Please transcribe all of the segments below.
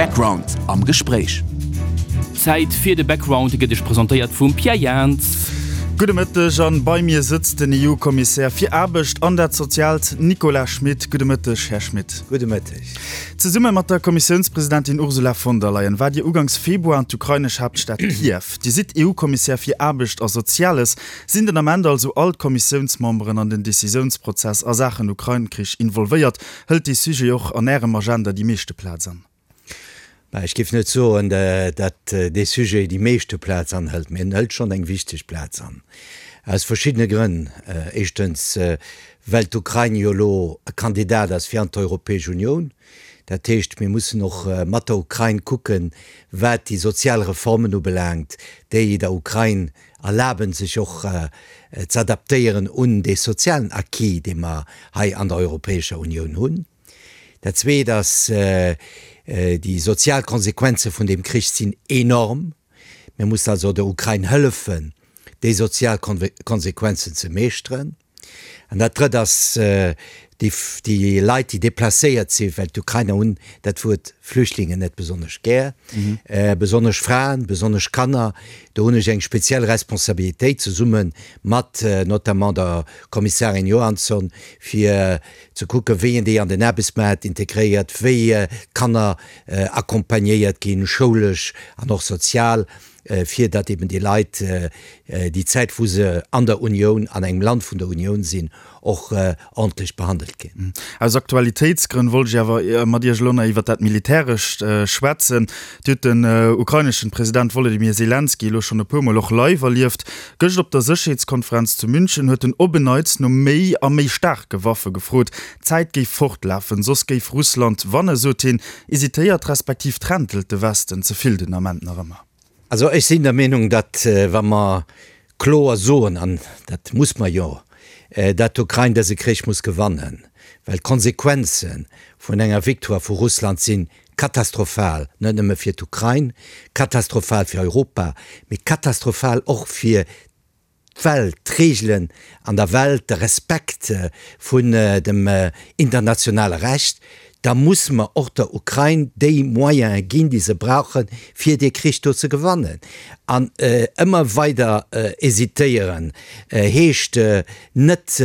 Background am Gespréich. Zäit fir de Background, e gëtt Iech presentéiert vum Pierre Jans. Gudde Mëtteg an bei mir sëtzt den EU-Kommissär fir Aarbecht an dat Soziaalt Nicolas Schmit. Gudde Mëtteg, Här Schmit. Gudde Mëtteg. Zesumme mat der Kommissiounspresidentin Ursula von der Leyen waart Dir ugangs Februar an d'ukrainesch Haaptstad Kiew. Dir sidd EU-Kommissär fir Aarbecht a Soziales. Sinn den Ament also all d'Kommissiounsmemberen an den Decisiounsprozess a Saachen Ukrain-Krich involvéiert? Hëlt dee Sujet och an Ärem Agenda déi meeschte Plaz an? Bah, ech géif net soen, datt dee Sujet déi meeschte Plaz anhëlt, mee en hëlt schonn eng wichteg Plaz an. Aus verschiddene Grënn. Éischtens, well d'Ukrain jo elo e Kandidat ass fir an d'Europäesch Unioun. Dat heescht, mir mussen och mat der Ukrain kucken, wat déi sozial Reformen ubelaangt, déi der Ukrain erlaben, sech och z'adaptéieren un dee sozialen Acquis, dee mer hei an der Europäescher Unioun hunn. Dat Zweet ass, déi sozial Konsequenze vun deem Krich sinn enorm. Mir mussen also der Ukrain hëllefen, déi sozial Konsequenzen ze meeschteren. An dat Drëtt ass, déi Leit, déi deplacéiert sinn, well d'Ukrainer hunn dat Wuert Flüchtlingen net besonnesch gär, besonnesch Fraen, besonnesch Kanner, do hunn ech eng speziell Responsabilitéit zesumme mat notamment der Kommissarin Johansson, fir ze kucken, wéi een déi an den Aarbechtsmaart integréiert, wéi d'Kanner accompagnéiert ginn, schoulesch an och sozial. fir datt eben déi Leit déi Zäit wou se an der Unioun, an engem Land vun der Unioun sinn, och ordentlech behandelt ginn. Aus Aktualitéitsgrënn wollt ech awer mat Iech elo nach iwwert dat Militärescht schwätzen. Dir hutt den ukraineschen President Wolodymyr Selenskyj elo schonn e puer Mol och live erlieft. Gëscht op der Sécherheetskonferenz zu München huet en op en Neits no méi a méi staarke Waffe gefrot. D'Zäit géif fortlafen, soss géif Russland wanne, sot hien. Hesitéiert respektiv trentelt de Westen ze vill den Ament nach ëmmer? Also ech sinn der Meenung, datt wa mer kloer soen, an dat muss mer jo, datt d'Ukrain dëse Krich muss gewannen, well d'Konsequenze vun enger Victoire vu Russland si katastrophal, net nëmme fir d'Ukrain, katastrophal fir Europa, mee katastrophal och fir d'Welt, d'Reegelen an der Welt, de Respekt vun dem internationale Recht, da musse mer och der Ukrain déi Moyene ginn, déi se brauchen, fir dee Krich do ze gewannen. An ëmmer weider hésitéieren heescht net,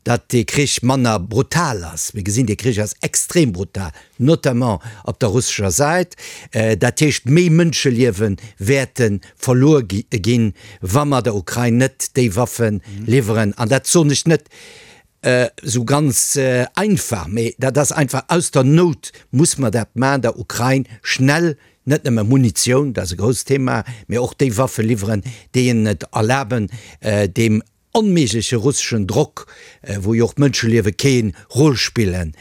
datt dee Krich manner brutal ass. Mir gesinn, dee Krich ass extrem brutal, notamment op der russescher Säit. Dat heescht, méi Mënscheliewe wäerte verluer ginn, wa mer der Ukrain net déi Waffe liwweren. An dat soen ech net esou ganz einfach, mee dat ass einfach aus der Nout muss mer dat maachen, der Ukrain schnell net nëmme Munitioun, dat ass e grousst Thema, mee och déi Waffe liwweren, déi hinnen et erlaben, deem onméigleche russeschen Drock, wou jo och d'Mënscheliewe kee Rôle spillen,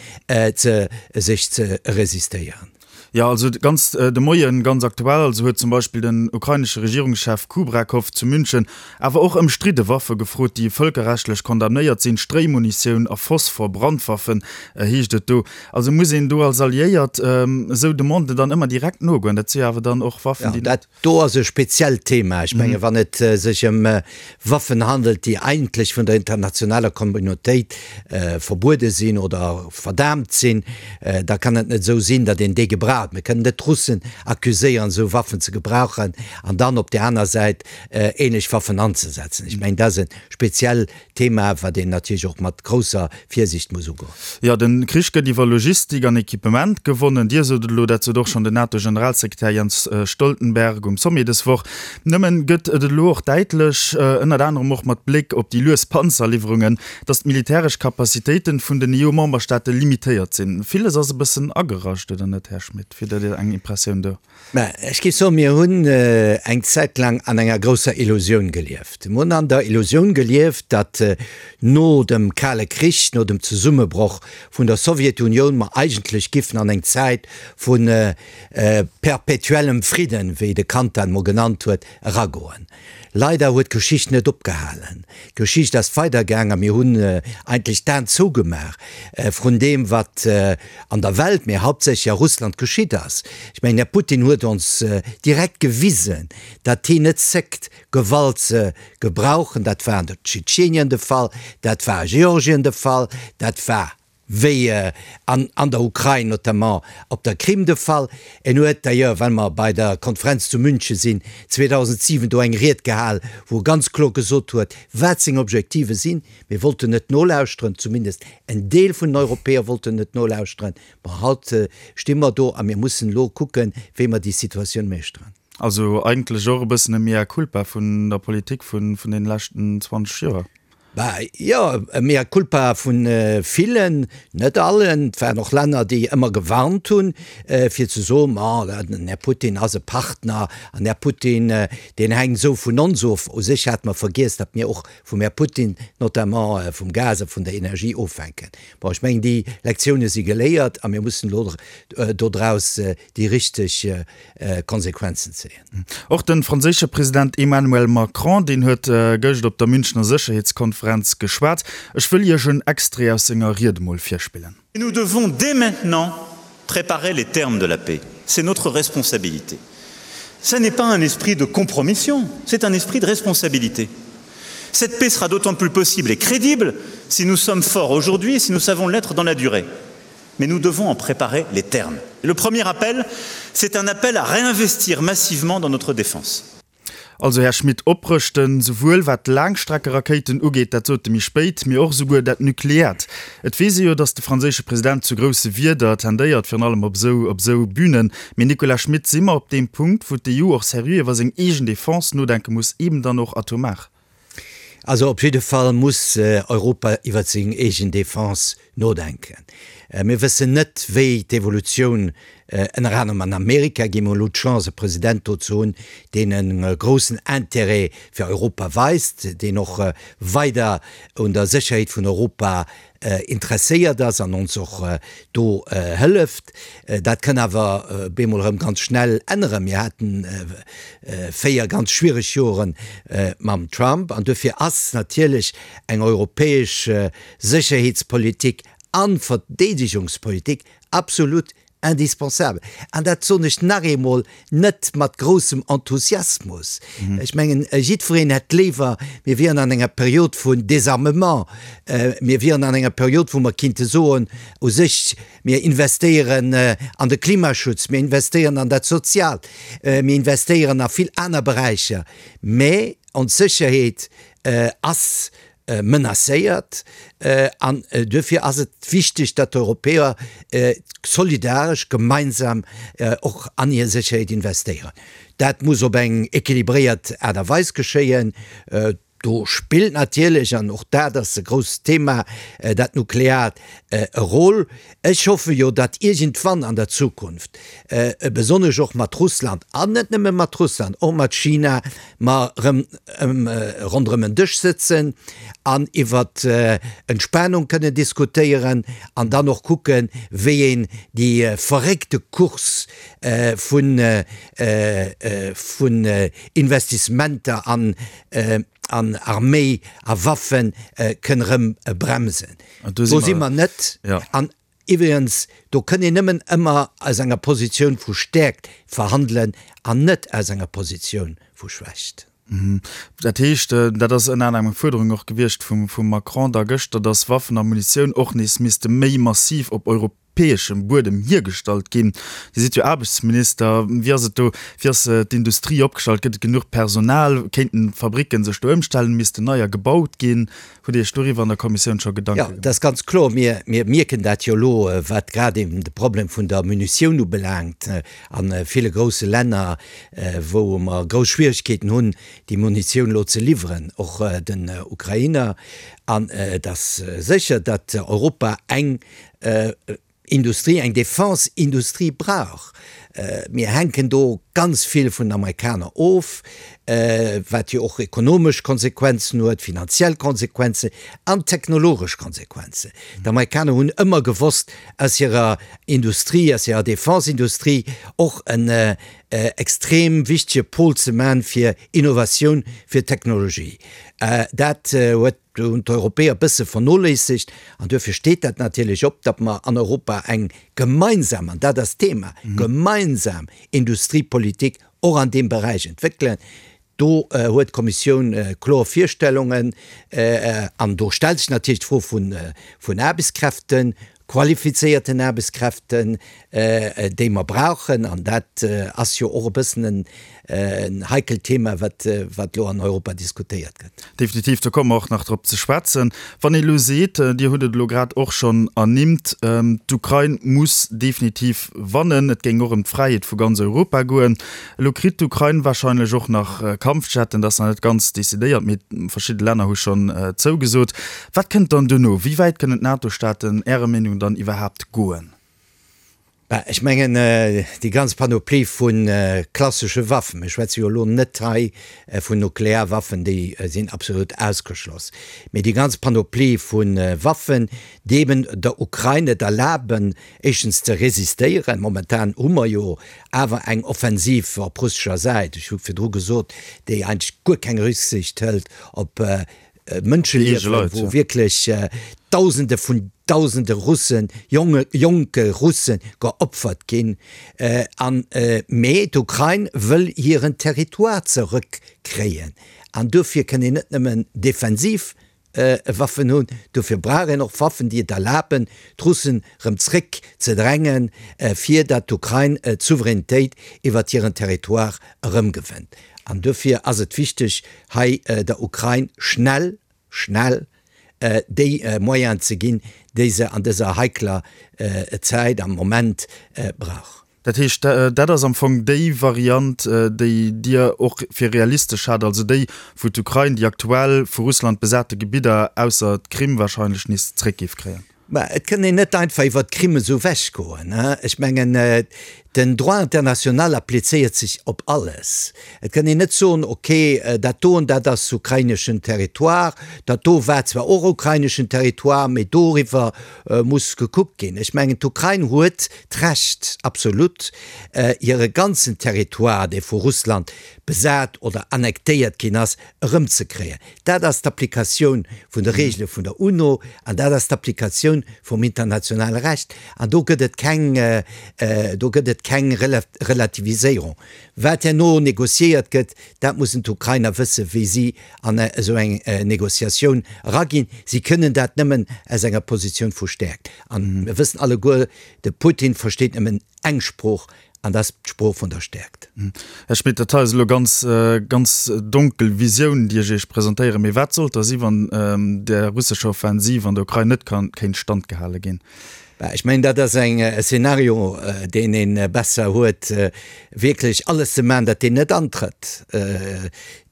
ze sech ze resistéieren. Jo, also ganz de Moien, ganz aktuell also, huet zum Beispill den ukrainesche Regierungschef Kubrakow zu München awer och ëmstridde Waffe gefrot, déi vëlkerrechtlech condamnéiert sinn, Stréimunitioun a Phosphor-Brandwaffen, heescht et do. Also muss een do als Alliéiert esou Demanden dann ëmmer direkt nogoen? Dat si jo awer dann och Waffen, déi net. Do ass e speziellt Thema. Ech menge wann et sech ëm Waffen handelt, déi eigentlech vun der internationaler Communautéit verbuede sinn oder verdaamt sinn, da kann et net esou sinn, datt een déi gebraucht. Mir kënnen net d'Russen accuséieren, esou Waffen ze gebrauchen an dann op där aner Säit ähnlech Waffen anzesetzen. Ech mengen, dat ass e speziell Thema, wat een natierlech och mat grousser Virsiicht muss ugoen. Jo, de Krich gëtt iwwer Logistik an Equipement gewonnen. Dir sot et elo, dat sot och schonn den NATO-Generalsekretär Jens Stoltenberg um Sommet dës Woch. Nëmmen gëtt et elo och däitlech, ënnert anerem och mat Bléck op déi lues Panzerliwwerungen, datt d'militäresch Capacitéiten vun den EU-Memberstaate limitéiert sinn. Villes ass e bëssen agerascht, oder net, Här Schmit? Wéi hutt Dir eng Impressioun do? Mä ech géif soen, mir hunn eng Zäit laang an enger grousser Illusioun gelieft. Mir hunn an der Illusioun gelieft, datt no dem Kale Krich, no dem Zesummebroch vun der Sowjetunioun mer eigentlech giffen an eng Zäit vu perpétuellem Fridden, wéi de Kant dat emol genannt huet, eragoen. Leider huet d'Geschicht net opgehalen. D'Geschicht ass weidergaang a mir hunn eigentlech d'Aen zougemaach vrun deem, wat an der Welt, mä hauptsächlech a Russland geschitt ass. Ech mengen, Här Putin huet ons direkt gewisen, datt hien net zéckt, Gewalt ze gebrauchen. Dat war an der Tschetschenien de Fall, dat war a Georgien de Fall, dat war. Wéi an an der Ukrain, notamment op der Krim de Fall. En huet d'ailleurs, well mer bei der Konferenz zu München sinn, 2007 do eng Ried gehal, wou e ganz kloer gesot huet, wat seng Objektive sinn. Mir wollten net nolauschteren, zumindest en Deel vun den Europäer wollten net nolauschteren. Bon, haut sti mer do a mir mussen elo kucken, wéi mer déi Situatioun meeschteren. Also eigentlech och e bëssen e Mea culpa vun der Politik vun deene leschten 20 Joer. Bah, jo, e Mea culpa vu villen, net allen. Et waren och Länner, déi ëmmer gewarnt hunn, fir ze soen, Ma, den Här Putin ass e Partner an Här Putin, deen hänkt esou vun ons of. U sech hate mer vergiess, datt mir och vum Här Putin, notamment vum Gas a vun der Energie ofhänken. Bon, ech mengen, déi Lektioune si geléiert a mir mussen elo dodraus déi richteg Konsequenzen zéien. Och de franséische President Emmanuel Macron, deen huet gëscht op der Münchner Sécherheetskonferenz geschwat. Ech wëll Iech en Extrait aus senger Ried emol virspillen. Nous devons dès maintenant préparer les termes de la paix. C'est notre responsabilité. Ce n'est pas un esprit de compromission, c'est un esprit de responsabilité. Cette paix sera d'autant plus possible et crédible si nous sommes forts aujourd'hui et si nous savons l'être dans la durée. Mais nous devons en préparer les termes. Le premier appel, c'est un appel à réinvestir massivement dans notre défense. Also, Här Schmit, oprëschten, souwuel wat d'Laangstreckerakéiten ugeet, dat sot e méi spéit, mee och esouguer dat Nukleäert. Et weess ee jo, datt de franséische President zu grousse Wierder tendéiert, virun allem op esou op esou Bünen. Mee, Nicolas Schmit, si mer op deem Punkt, wou d'EU och seriö iwwer seng eegen Defense nodenke muss, eben dann och atomar? Also op jidde Fall muss Europa iwwer seng eegen Defense nodenken. Mir wëssen net, wéi d'Evolutioun ënner anerem an Amerika ginn. Mir hunn elo d'Chance, e President do ze hunn, deen e groussen Intérêt fir Europa weist, deen och weider un der Sécherheet vun Europa interesséiert ass an ons och do hëlleft. Dat kann awer bemol erëm ganz schnell änneren. Mir haten 4 ganz schwiereg Jore mam Trump an duerfir ass natierlech eng europäesch Sécherheetspolitik a Verdeedegungspolitik absolut Indispensabel. An dat soen ech nach eemol net mat groussem Enthusiasmus. Ech mengen, jiddwereen hätt léiwer, mir wieren an enger Period vun Désarmement, mir wieren an enger Period, wou mer kinnte soen, u sech, mir investéieren an de Klimaschutz, mir investéieren an dat Soziaalt, mir investéieren a vill aner Beräicher. Mä ons Sécherheet ass menacéiert an duerfir ass et wichteg, datt d'Europäer solidaresch gemeinsam och an hir Sécherheet investéieren. Dat muss op eng équilibréiert Aart a Weis geschéien. Do spillt natierlech, an och dat ass e grousst Thema, dat Nukleaart e Rôle. Ech hoffe jo, datt iergendwann an der Zukunft, besonnesch och mat Russland, an net nëmme mat Russland, och mat China, mer erëm ronderëm en Dësch sëtzen an iwwer Entspanung kënnen diskutéieren an dann och kucken, wéi een déi verréckte Course vun Investissementer an Arméi a Waffe kënn erëm bremsen. Do si mer net. An iwwregens, do kënn een nëmmen ëmmer aus enger Positioun vu Stäerkt verhandelen an net aus enger Positioun vu Schwächt. Dat heescht, dat ass ënner anerem eng Fuerderung och gewiescht vum Macron da gëschter, datt Waffen a Munitioun och nees misste méi massiv op europäeschem Buedem hiergestallt ginn. Dir sidd jo Aarbechtsminister. Wéi ass et do? Wéi ass d'Industrie opgestallt? Gëtt et genuch Personal? Kéinten d'Fabricken sech do ëmstellen? Missten neier gebaut ginn? Hutt Dir Iech doriwwer an der Kommissioun scho Gedanke gemaach? Jo, dat ass ganz kloer. Mir, mir mierken dat jo elo, wat grad eben de Problem vun der Munitioun ubelaangt a ville grousse Länner, wou mer grouss Schwierigkeeten hunn, déi Munitioun elo ze liwweren, och den Ukrainer. An et ass sécher, datt Europa eng Industrie, eng Defense-Industrie brauch. Mir hänken do ganz vill vun den Amerikaner of, wat jo och ekonomesch Konsequenzen huet, finanziell Konsequenzen an technologesch Konsequenzen. D'Amerikaner hunn ëmmer gewosst, aus hirer Industrie, aus hirer Defense-Industrie och en extrem wichtege Pol ze man fir Innovatioun, fir Technologie. Dat huet Do hunn d'Europäer e bësse vernoléissegt an duerfir steet dat natierlech op, datt mer an Europa eng gemeinsam, an dat ass d'Thema, gemeinsam Industriepolitik och an deem Beräich entwéckelen. Do huet d'Kommissioun kloer Virstellungen an do stellt sech natierlech d'Fro vun Aarbechtskräften. qualifizéierten Aarbechtskräften, déi mer brauchen. An dat ass jo och e bëssen en heikelt Thema, wat elo an Europa diskutéiert gëtt. Definitiv, do komme mer och nach drop ze schwätzen. Wann ee elo seet, Dir hutt et elo grad och schonn ernimmt, d'Ukrain muss definitiv wannen, et géing och ëm d'Fräiheet vu ganz Europa goen. Elo kritt d'Ukrain warscheinlech och nach Kampfjetten, dat ass nach net ganz decidéiert, mee verschidde Länner hu schonn zougesot. Wat kënnt dann duerno? Wéi wäit kënnen d'NATO-Staaten Ärer Meenung dann iwwerhaapt goen? Bah, ech mengen, déi ganz Panoplie vu klassesche Waffen, mir schwätze jo elo net hei vun Nuklearwaffen, déi sinn absolut ausgeschloss, mee déi ganz Panoplie vu Waffen, déi eben der Ukrain et erlaben, éischtens ze resistéieren, momentan hu mer jo awer eng Offensiv op russescher Säit, ech hu virdru gesot, déi eigentlech guer keng Rücksicht hëlt op Mënscheliewen, wou wierklech Dausende vun Dausende Russen, jonge, jonke Russe geopfert ginn. An, mee d'Ukrain wëll hiren Territoire zerëckkréien. An dofir kënn een net nëmmen defensiv Waffen hunn, dofir brauch een och Waffen, déi et erlaben, d'Russen rëm zréck ze drängen, fir datt d'Ukrain d'Souveränitéit iwwert hiren Territoire erëmgewënnt. An dofir ass et wichteg, hei der Ukrain schnell, schnell déi Moyenen ze ginn, déi se an dëser heikler Zäit am Moment brauch. Dat heescht, dat ass am Fong déi Variant, déi Dir och fir realistesch haalt, also déi, wou d'Ukrain déi aktuell vu Russland besate Gebidder, ausser d'Krim wahrscheinlech, nees zréck géif kréien? Mä et kënn een net einfach iwwert d'Krim esou ewechgoen. Ech mengen, den Droit international applizéiert sech op alles. Et kënn een net soen, ok, dat doen, dat ass ukraineschen Territoire, dat do war zwar och ukraineschen Territoire, mee doriwwer muss gekuckt ginn. Ech mengen, d'Ukrain huet d'Recht, absolut, hire ganzen Territoire, dee vu Russland besat oder annektéiert ginn ass, erëmzekréien. Dat ass d'Applikatioun vun de Regele vun der UNO an dat ass d'Applikatioun vum internationale Recht. An do gëtt et keng, do gëtt et keng Relativiséierung. Wat herno négociéiert gëtt, dat mussen d'Ukrainer wëssen, wéi si an esou eng Négociatioun eraginn. Si kënnen dat nëmmen aus enger Positioun vu Stäerkt. An mir wëssen alleguer, de Putin versteet nëmmen eng Sprooch, An dat ass d'Sprooch vun der Stäerkt. Här Schmit, dat hei ass elo ganz, ganz donkel Visioun, déi ech Iech presentéieren. Mee wat sollt da si wann der russescher Offensiv an der Ukrain net ka kéint standgehale ginn? Bah, ech mengen, dat ass eng e Szenario, deen ee besser huet, wierklech alles ze maachen, datt deen net antrëtt.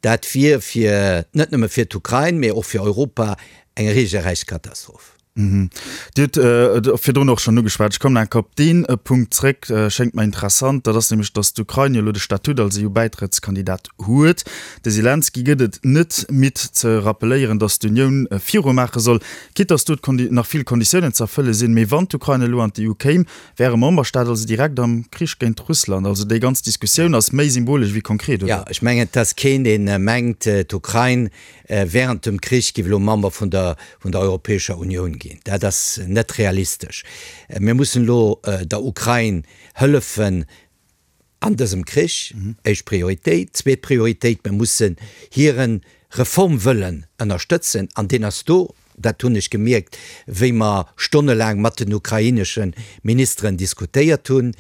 Dat wier fir, net nëmme fir d'Ukrain, mee och fir Europa eng regelrecht Katastroph. Dir hutt et virdrun och schonn ugeschwat, ech kommen enker op dee Punkt zréck, schéngt mer interessant, dat ass nämlech, datt d'Ukrain jo elo de Statut als EU-Bäitrëttskandidat huet. De Selenskyj gëtt et net midd ze rappeléieren, datt d'Unioun virumaache soll, quitte datt do nach vill Konditiounen ze erfëlle sinn. Mee wann d'Ukrain elo an d'EU kéim, wär e Memberstaat also direkt am Krich géint Russland. Also déi ganz Diskussioun ass méi symbolesch wéi konkret, oder? Jo, ech mengen, et ass keen, dee mengt, d'Ukrain Während dem Krich giff elo Member vun der vun der Europäescher Unioun ginn. Dat ass net realistesch. Mir mussen elo der Ukrain hëllefen an dësem Krich, éischt Prioritéit. Zweet Prioritéit, mir mussen hire Reformwëllen ënnerstëtzen an deen ass do. Dat hunn ech gemierkt, wéi mer stonnelaang mat den ukrainesche Ministeren diskutéiert hunn.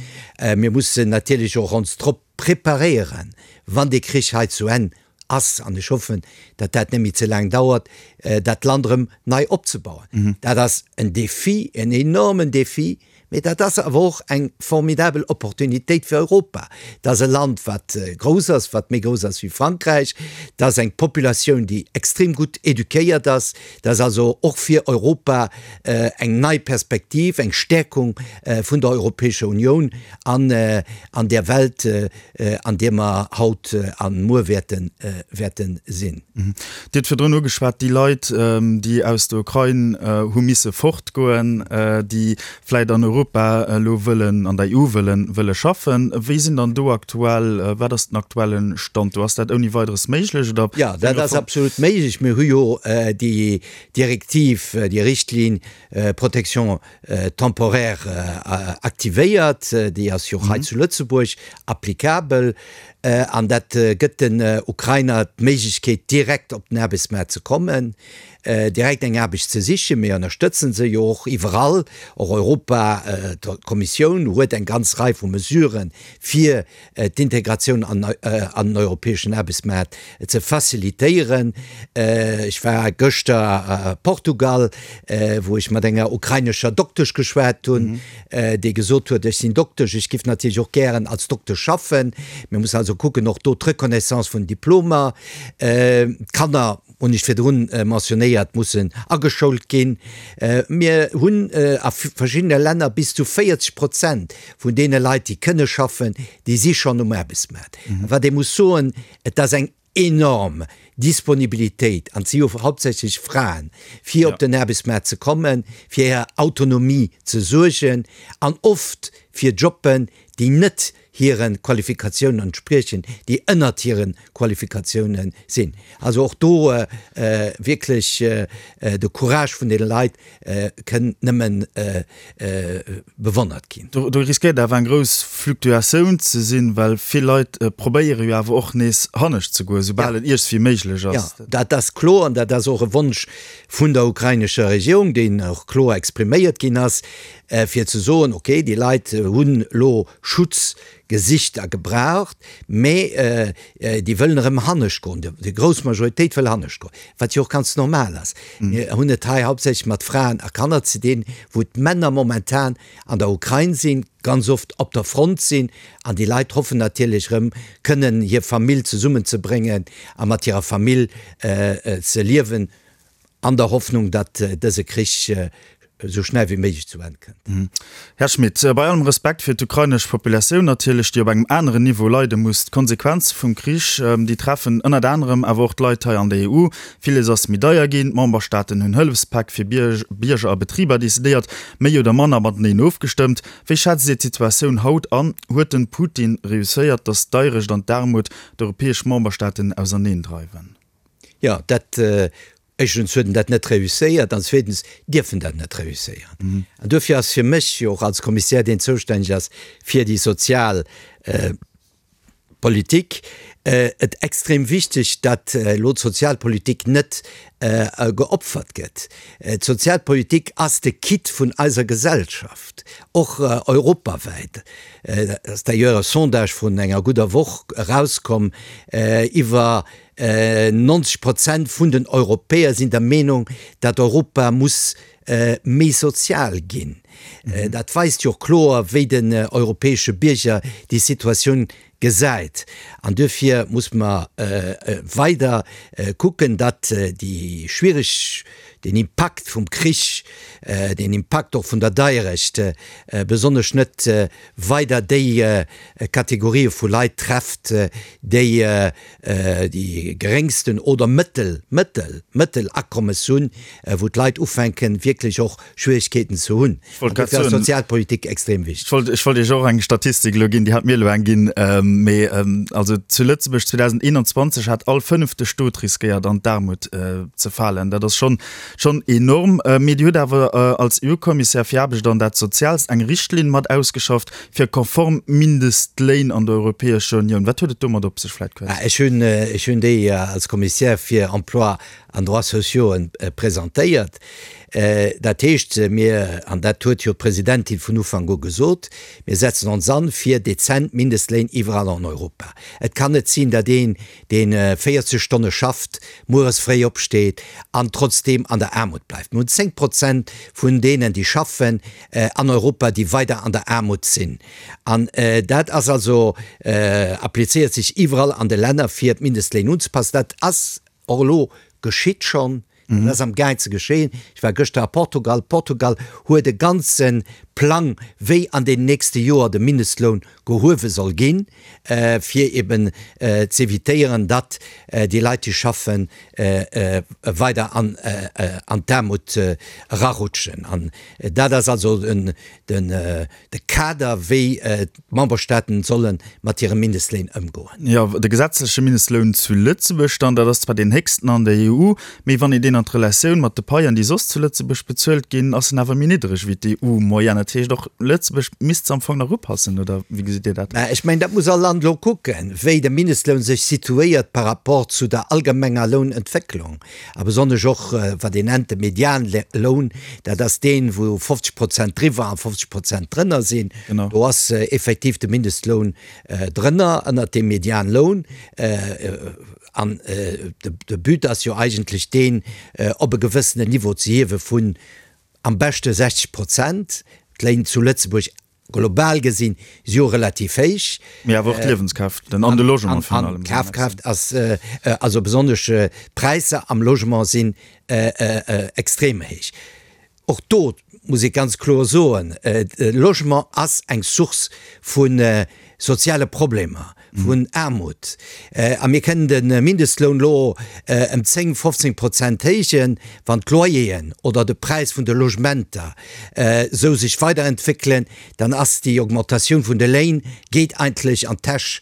Mir mussen natierlech och ons drop preparéieren, wann dee Krich hei zu Enn ass, an ech hoffen, datt dat net méi ze laang dauert, dat Land erëm nei opzebauen. Dat ass en Défi, en enormen Défi, mee dat ass awer och eng formidabel Opportunitéit fir Europa. Dat ass e Land, wat grouss ass, wat méi grouss ass wéi Frankräich. Dat ass eng Populatioun, déi extrem gutt éduquéiert ass. Dat ass also och fir Europa eng nei Perspektiv, eng Stärkung vun der Europäescher Unioun an an där Welt, an deer mer haut a muer wäerte wäerte sinn. Dir hutt virdrun ugeschwat, déi Leit, déi aus der Ukrain hu misse fortgoen, déi vläicht an Europa elo wëllen, an der EU wëllen, wëlle schaffen. Wéi sinn dann do aktuell, wat ass den aktuelle Stand do? Ass dat ouni Weideres méiglech oder? Jo, dat ass absolut méiglech. Mir hu jo déi Direktiv, déi Richtlinn Protection temporaire aktivéiert, déi ass jo och hei zu Lëtzebuerg applicabel. An dat gëtt den Ukrainer d'Méiglechkeet, direkt op den Aarbechtsmaart ze kommen, direkt eng Aarbecht ze sichen. Mir ënnerstëtzen se jo och iwwerall. Och Europa, d'Kommissioun huet eng ganz Rei vu Mesuren, fir d'Integratioun an den europäeschen Aarbechtsmaart ze facilitéieren. Ech war gëschter a Portugal, wou ech mat enger ukrainescher Doktesch geschwat hunn, déi gesot huet, Ech sinn Doktesch, ech giff natierlech och gären als Doktesch schaffen. Mir mussen also kucken, och do d'Reconnaissance vun Diplomer. D'Kanner, hunn ech virdrun mentionnéiert, mussen ageschoult ginn. Mir hunn a verschiddene Länner bis zu 40 Prozent vun deene Leit, déi kënne schaffen, déi si schonn um Aarbechtsmaart. A wat ee muss soen, et ass eng enorm Disponibilitéit, an et si jo hauptsächlech Fraen, fir op den Aarbechtsmaart ze kommen, fir hir Autonomie ze suergen an oft fir Jobben, déi net hire Qualifikatiounen entspriechen, déi ënnert hire Qualifikatiounen sinn. Also och do wierklech de Courage vun deene Leit kënn nëmmen bewonnert ginn. Do riskéiert awer eng grouss Fluktuatioun ze sinn, well vill Leit probéiere jo awer och nees hannescht ze goen, soubal et iergswéi méiglech ass. Jo, dat ass kloer an dat ass och e Wonsch vun der ukrainescher Regierung, deen och kloer expriméiert ginn ass, fir ze soen, okay, déi Leit hunn elo Schutz gesicht a gebraucht, mä déi wëllen erëm hannescht goen, déi grouss Majoritéit wëll hannescht goen, wat jo och ganz normal ass. Mir hunn et hei hauptsächlech mat Fraen a Kanner ze dinn, wou d'Männer momentan an der Ukrain sinn, ganz oft op der Front sinn, an déi Leit hoffen natierlech erëm kënnen hir Famill zesummenzebréngen a mat hirer Famill ze liewen. An der Hoffnung, datt dëse Krich esou schnell wéi méiglech zu Enn kënnt. Här Schmit, bei allem Respekt fir d'ukrainesch Populatioun natierlech, déi op engem aneren Niveau leide muss, d'Konsequenze vum Krich, déi treffen ënnert anerem awer och d'Leit hei an der EU. Villes ass méi deier ginn, d'Memberstaaten hunn Hëllefspäck fir Bierger a Betriber decidéiert, méi oder manner mateneen ofgestëmmt. Wéi schätzt Dir d'Situatioun haut an? Huet den Putin reusséiert, datt d'Deirecht an d'Aarmut d'europäesch Memberstaaten auserneendreiwen? Jo, dat, éischtens huet en dat net reusséiert an zweetens dierf en dat net reusséieren. An duerfir ass fir mech jo och als Kommissär, deen zoustänneg ass fir déi sozial Politik, et extrem wichteg, datt elo d'Sozialpolitik net geopfert gëtt. D'Sozialpolitik ass de Kitt vun eiser Gesellschaft, och europawäit. Et ass d'ailleurs e Sondage vrun enger gudder Woch erauskomm, iwwer 90 Prozent vun den Europäer sinn der Meenung, datt Europa muss méi sozial ginn. Dat weist jo och kloer, wéi den europäesche Bierger déi Situatioun gesäit. An duerfir muss mer weider kucken, datt déi schwiereg, deen Impakt vum Krich, deen Impakt och vun der Deierecht besonnesch net weider déi Kategorië vu Leit trefft, déi déi geréngsten oder mëttel, mëttel, mëttel Akommes hunn, wou d'Leit ufänken, wierklech och Schwierigkeeten ze hunn. An dofir ass d'Sozialpolitik extrem wichteg. Ech wollt, ech wollt Iech och eng Statistik elo ginn, déi hat mir elo eng ginn, mee also zu Lëtzebuerg 2021 hat all fënnefte Stot riskéiert an d'Aarmut ze falen. Dat ass schonn, schonn enorm. Mee Dir hutt awer als EU-Kommissär fir Aarbecht an dat Soziaalst eng Richtlinn mat ausgeschafft fir konform Mindestléin an der Europäescher Unioun. Wat huet et domat op sech, vläicht kuerz? Ech hunn, ech hunn déi als Kommissär fir Emploi an Droits sociaux presentéiert. Dat heescht, mir, an dat huet jo d'Presidentin vun Ufank u gesot, mir setzen ons an fir dezent Mindestléin iwwerall an Europa. Et kann net sinn, datt een, dee 40 Stonne schafft, mueres fréi opsteet an trotzdeem an der Aarmut bleift. Mir hunn 10 Prozent vun deenen, déi schaffen an Europa, déi weider an der Aarmut sinn. An dat ass also, applizéiert sech iwwerall an de Länner, fir d'Mindestléin unzepassen. Dat ass Och elo geschitt schonn, dat ass am gaang ze geschéien. Ech war gëschter a Portugal. Portugal huet e ganze Plang, wéi an den nächste Joer de Mindestloun gehuewe soll ginn, fir eben z'evitéieren, datt déi Leit, déi schaffen, weider an d'Aarmut erarutschen. An dat ass also den de Kader, wéi d'Memberstaaten solle mat hire Mindestléin ëmgoen. Jo, de gesetzleche Mindestloun zu Lëtzebuerg dann, dat ass zwar deen héchsten an der EU, mee wann een deen. Mindestléin an d'Relatioun mat de Paien, déi soss zu Lëtzebuerg bezuelt ginn, ass en awer méi niddreg wéi d'EU-Moyenne. Dat heescht, och Lëtzebuerg misst se am Fong nach upassen, oder wéi gesitt Dir dat? Mä ech mengen, dat muss all Land elo kucken, wéi de Mindestloun sech situéiert par rapport zu der allgemenger Lounentwécklung a besonnesch och wat een nennt de Medianloun, dat ass deen, wou 50 Prozent driwwer a 50 Prozent drënner sinn. Do ass effektiv de Mindestloun drënner, ënnert deem Medianloun. An de But ass jo eigentlech deen, op e gewëssenen Niveau ze hiewe vun am beschte 60 Prozent. D'Léin zu Lëtzebuerg global gesinn si jo relativ héich. Mee awer och d'Liewenskraaft an de Logement virun allem. An d'Kafkraaft ass, also besonnesch d'Präisser am Logement sinn extrem héich. Och do muss ee ganz kloer soen, de Logement ass eng Source vu soziale Problemer, vun Aarmut. A mir kënnen de Mindestloun elo ëm 10, 15 Prozent héijen, wann d'Loyeren oder de Präis vun de Logementer esou sech weiderentwéckelen, dann ass déi Augmentatioun vun de Léin geet eigentlech an d'Täsch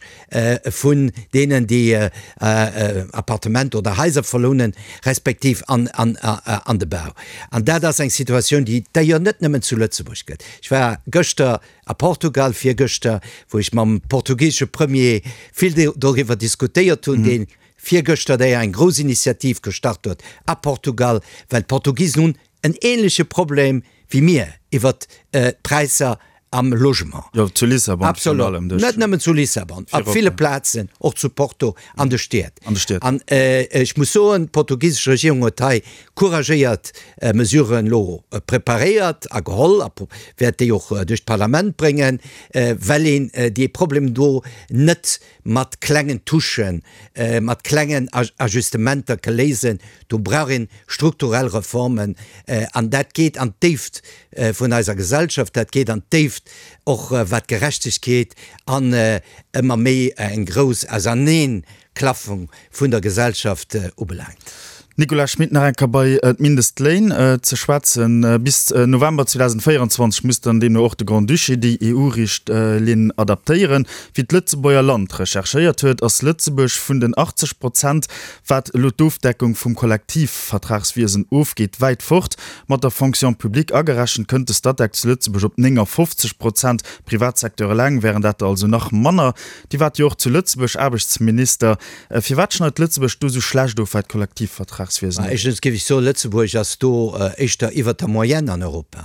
vun deenen, déi Appartementer oder Haiser verlounen, respektiv an de Bau. An dat ass eng Situatioun, déi et d'ailleurs net nëmmen zu Lëtzebuerg gëtt. Ech war gëschter a Portugal, virgëschter, wou ech mam portugisesche Premier vill doriwwer diskutéiert hunn, dee virgëschter d'ailleurs eng grouss Initiativ gestart huet a Portugal, well d'Portugisen hunn en ähnleche Problem wéi mir iwwert d'Präisser am Logement. Jo, zu Lissabon virun allem. Absolut, net nëmmen zu Lissabon, op ville Plazen, och zu Porto, an de Stied. An de Stied. An ech muss soen, d'portugisesch Regierung huet hei couragéiert Mesuren elo preparéiert a geholl a wäert déi och duerch d'Parlament bréngen, well een dee Problem do net mat klengen Touchen, mat klengen Ajustementer ke léisen. Do brauch een strukturell Reformen an dat geet an d'Déift vun eiser Gesellschaft, dat geet an d'Déift och wat d'Gerechtegkeet an ëmmer méi eng grouss Auserneenklaffung vun der Gesellschaft ubelaangt. Nicolas Schmit, Nach eng Kéier bei d'Mindestléin ze schwätzen. Bis November 2024 muss dann deemno och de Grand-Duché déi EU-Richtlinn adaptéieren. Wéi d'Lëtzebuerger Land recherchéiert huet, ass Lëtzebuerg vun den 80 Prozent, wat elo d'Ofdeckung vum Kollektivvertragswiesen ofgeet, wäit fort. Mat der Fonction publique agerechent kënnt de Statec zu Lëtzebuerg op 59 Prozent, Privatsecteur eleng wären dat der also nach manner. Dir waart jo och zu Lëtzebuerg Aarbechtsminister. Firwat schneit Lëtzebuerg do esou schlecht of, wat d'Kollektivvertragswiesen ugeet? Éischtens géif ech soen, Lëtzebuerg ass do éischter iwwert der Moyenne an Europa.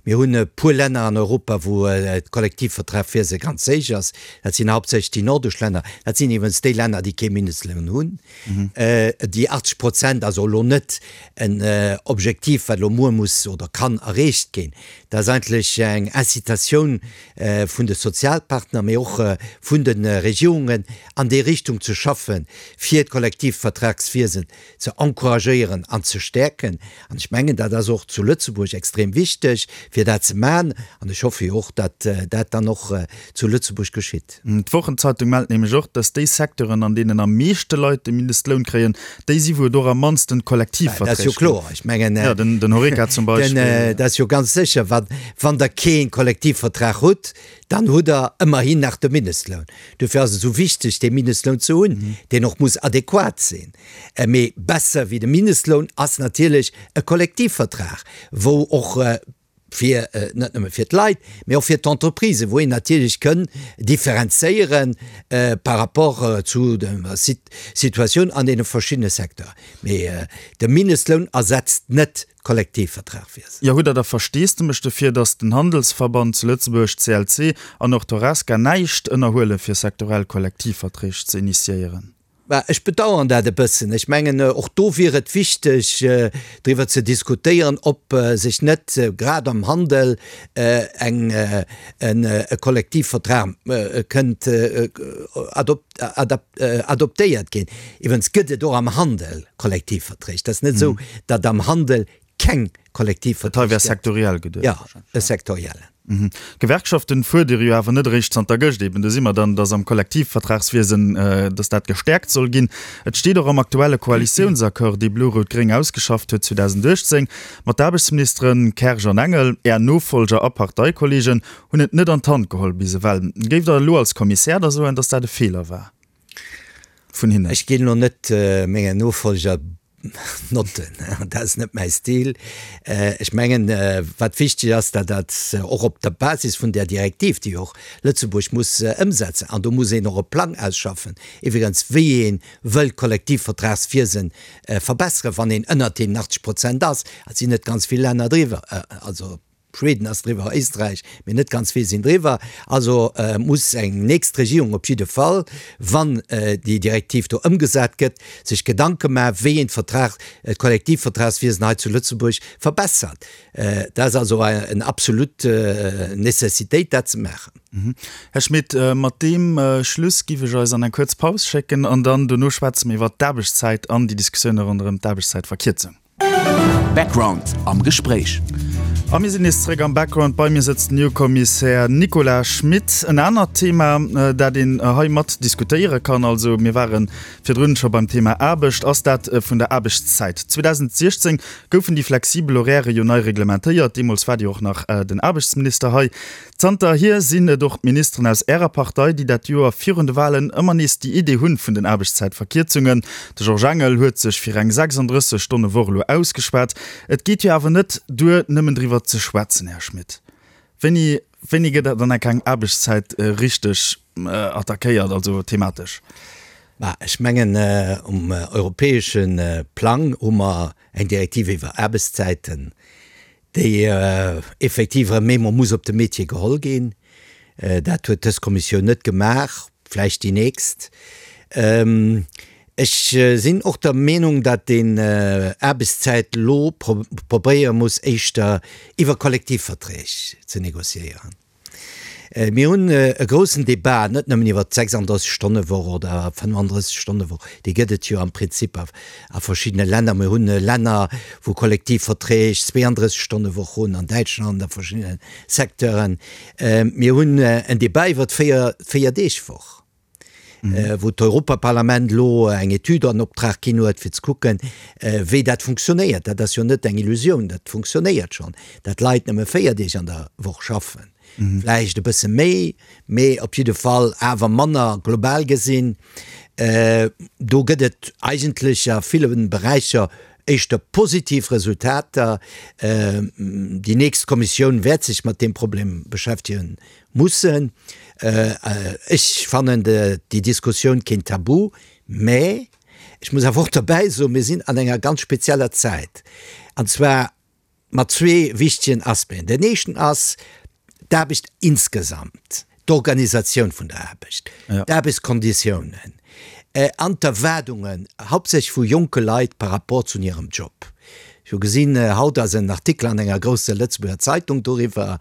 Mir hunn e puer Länner an Europa, wou d'Kollektivvertragwiese ganz héich ass. Dat sinn hauptsächlech déi nordesch Länner. Dat sinn iwwregens déi Länner, déi kee Mindestloun hunn. Déi 80 Prozent ass och elo net en Objektiv, wat elo muer muss oder kann erreecht ginn. Dat ass eigentlech eng Incitatioun vun de Sozialpartner, mee och vun de Regierungen, an déi Richtung ze schaffen, fir d'Kollektivvertragswiesen ze encouragéieren an ze stäerken. An ech mengen, dat ass och zu Lëtzebuerg extrem wichteg, fir dat ze maachen. An ech hoffe jo och, datt dat dann och zu Lëtzebuerg geschitt. D'Wochenzeitung mellt nämlech och, datt déi Secteuren, an deenen am meeschte Leit de Mindestloun kréien, déi si wou et och am mannsten Kollektivverträg Dat ass jo kloer. Ech mengen, ja, den, den Horeca zum Beispill. Den, dat ass jo ganz sécher, wann, wann Der kee Kollektivvertrag hutt, dann hutt Der ëmmerhin nach de Mindestloun. Dofir ass et esou wichteg, dee Mindestloun ze hunn, deen och muss adequat sinn. Mee besser wéi de Mindestloun ass natierlech e Kollektivvertrag, wou och fir, net nëmme fir d'Leit, mee och fir d'Entreprisen, wou een natierlech kënn differenzéiere par rapport zu der Situatioun an deene verschiddene Secteuren. Mee de Mindestloun ersetzt net d'Kollektivvertragwiesen. Jo, hutt Der da Versteesdemech dofir, datt den Handelsverband zu Lëtzebuerg, CLC, an och d'Horesca näischt ënnerhuele fir sektorell Kollektivverträg ze initiéieren? Bah, ech bedauern dat e bëssen. Ech mengen, och do wier et wichteg, driwwer ze diskutéieren, ob sech net grad am Handel eng, e Kollektivvertrag kënnt adoptéiert ginn. Iwwregens gëtt et och am Handel Kollektivverträg. Et ass net esou, datt am Handel keng Kollektivverträg gëtt. Dat hei wär sektoriell geduecht. Jo, e sektoriellen. D'Gewerkschaften fuerdere jo awer net eréischt zanter gëscht eben, do si mer dann, datt am Kollektivvertragswiesen, datt dat gestäerkt soll ginn. Et steet och am aktuelle Koalitiounsaccord, dee Blo-Rout-Gréng ausgeschafft huet 2018. Ma d'Aarbechtsministeren Kersch an Engel, Är Nofolger a Parteikollegen, hunn et net an d'Hand geholl bis ewell. Géift Der elo als Kommissär da soen, datt dat e Feeler war vun hinnen? Ech ginn elo net mengen Nofolger. Notten, dat ass net mäi Stil. Ech mengen, wat wichteg ass, dat dat och op der Basis vun där Direktiv, déi och Lëtzebuerg muss ëmsetzen, an do muss een och e Plang ausschaffen, iwwregens wéi ee wëll d'Kollektivvertragswiese verbesseren, wann een ënnert deenen 80 Prozent ass, et sinn net ganz vill Länner driwwer, also Schweden ass driwwer, Éisträich, mee net ganz vill sinn driwwer. Also muss eng nächst Regierung op jidde Fall, wann déi Direktiv do ëmgesat gëtt, sech Gedanke maachen, wéi een d'Vertrag, d'Kollektivvertragswiesen hei zu Lëtzebuerg verbessert. Dat ass also eng absolut Nécessitéit, dat ze maachen. Här Schmit, mat deem Schluss giff ech eis an eng kuerz Paus schécken an dann dono schwätze mir iwwert d'Aarbechtszäit an déi Diskussioune ronderëm d'Aarbechtszäitverkierzung. Background am Gespréich. A mir sinn nees zeréck am Background. Bei mir sëtzt den EU-Kommissär Nicolas Schmit. En anert Thema, dat een hei mat diskutéiere kann, also mir ware virdrun scho beim Thema Aarbecht, ass dat vun der Aarbechtszäit. 2016 goufen déi flexibel Horairë jo nei reglementéiert. Deemools waart Dir och nach den Aarbechtsminister hei. Zanterhier sinn et och d'Ministeren aus Ärer Partei, déi dat Joer virun de Walen ëmmer nees déi Idee hunn vun den Aarbechtszäitverkierzungen. De Georges Engel huet sech fir eng 36 Stonne Woch elo ausgeschwat. Et geet jo awer net duer, nëmmen driwwer ze schwätzen, Här Schmit. Wéini, wéini gëtt dann enk eng Aarbechtszäit richteg attackéiert, also thematesch? Bah, ech mengen, um europäesche Plang hu mer eng Direktiv iwwer Aarbechtszäiten, déi effektiv erëm eemol muss op de Métier geholl ginn. Dat huet dës Kommissioun net gemaach, vläicht déi nächst. Ech sinn och der Meenung, datt een Aarbechtszäit elo probéiere muss éischter iwwer Kollektivverträg ze négociéieren. Mir hunn e groussen Débat net nëmmen iwwert d'Sechsanddreißeg-Stonne-Woch oder 35-Stonne-Woch, déi gëtt et jo am Prinzip a verschiddene Länner. Mir hunn Länner, wou Kollektivverträg 32-Stonne-Woch hunn, an Däitschland a verschiddene Secteuren. Mir hunn en Débat iwwert d'Véier-Deeg-Woch. wou d'Europaparlament elo eng Etüd an Optrag ginn huet, fir ze kucken, wéi dat funktionéiert. Dat ass jo net eng Illusioun, dat funktionéiert schonn, dat Leit nëmme 4 Deeg an der Woch schaffen, vläicht e bësse méi, mee op jidde Fall awer manner global gesinn. Do gëtt et eigentlech a ville Beräicher éischter positiv Resultater. Déi nächst Kommissioun wäert sech mat deem Problem beschäftegen Mussen. Ech fannen déi Diskussioun keen Tabu, mä ech muss awer och derbäi soen, mir sinn an enger ganz spezieller Zäit, an zwar mat zwee wichtegen Aspecten. Den éischten ass d'Aarbecht insgesamt, d'Organisatioun vun der Aarbecht, d'Aarbechtskonditiounen an d'Erwaardungen, hauptsächlech vu jonke Leit par rapport zu hirem Job. Ech hu gesinn, haut ass en Artikel an enger grousser Lëtzebuerger Zeitung doriwwer,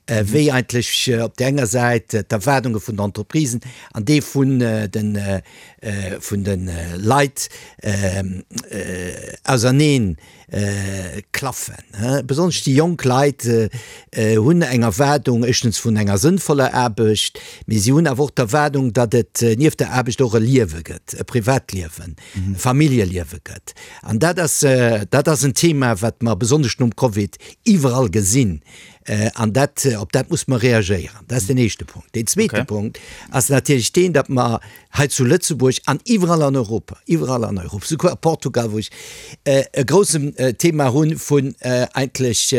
wéi eigentlech op där enger Säit d'Erwaardunge vun den Entreprisen an déi vun de vun de Leit auserneen klaffen. Besonnesch déi jonk Leit hunn eng Erwaardung, éischtens vun enger sënnvoller Aarbecht, mee si hunn awer och d'Erwaardung, datt et nieft der Aarbecht och e Liewe gëtt, e Privatliewen, e Familljeliewe gëtt. An dat ass, dat ass en Thema, wat mer besonnesch nom Covid iwwerall gesinn. An dat, op dat muss mer reagéieren. Dat ass den éischte Punkt. Deen zweete Punkt ass natierlech deen, datt mer hei zu Lëtzebuerg an iwwerall an Europa, iwwerall an Europa, souguer a Portugal, wou ech e groussen Thema hunn vun eigentlech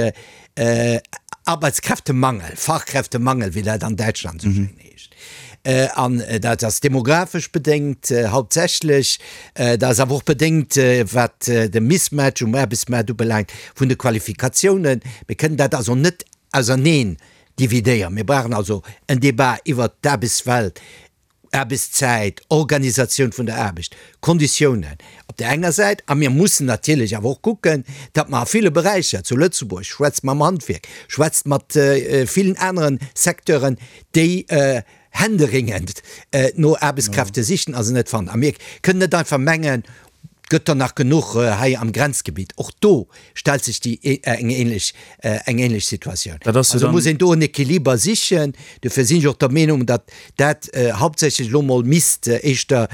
Arbeitskräftemangel, Fachkräftemangel, wéi dat an Däitschland esou schéin heescht. An dat ass demografesch bedéngt hauptsächlech, dat ass awer och bedéngt, wat de Mismatch um Aarbechtsmaart ubelaangt vun de Qualifikatiounen. Mir kënnen dat also net auserneen dividéieren. Mir brauchen also en Débat iwwert d'Aarbechtswelt Aarbechtszäit, Organisatioun vun der Aarbecht, Konditiounen op där enger Säit, a mir mussen natierlech awer och kucken, datt mer a ville Beräicher zu Lëtzebuerg, schwätzt mam Handwierk, schwätzt mat villen anere Secteuren, déi händeringend no Aarbechtskräfte sichen a se net fannen. A mir kënnen net einfach mengen, Et gëtt der nach genuch hei am Grenzgebitt. Och do stellt sech déi eng ähnlech eng ähnlech Situatioun. Dat ass jo Also dann. muss een do en Equiliber sichen. Dofir sinn ech och der Meenung, datt dat hauptsächlech elo mol misst éischter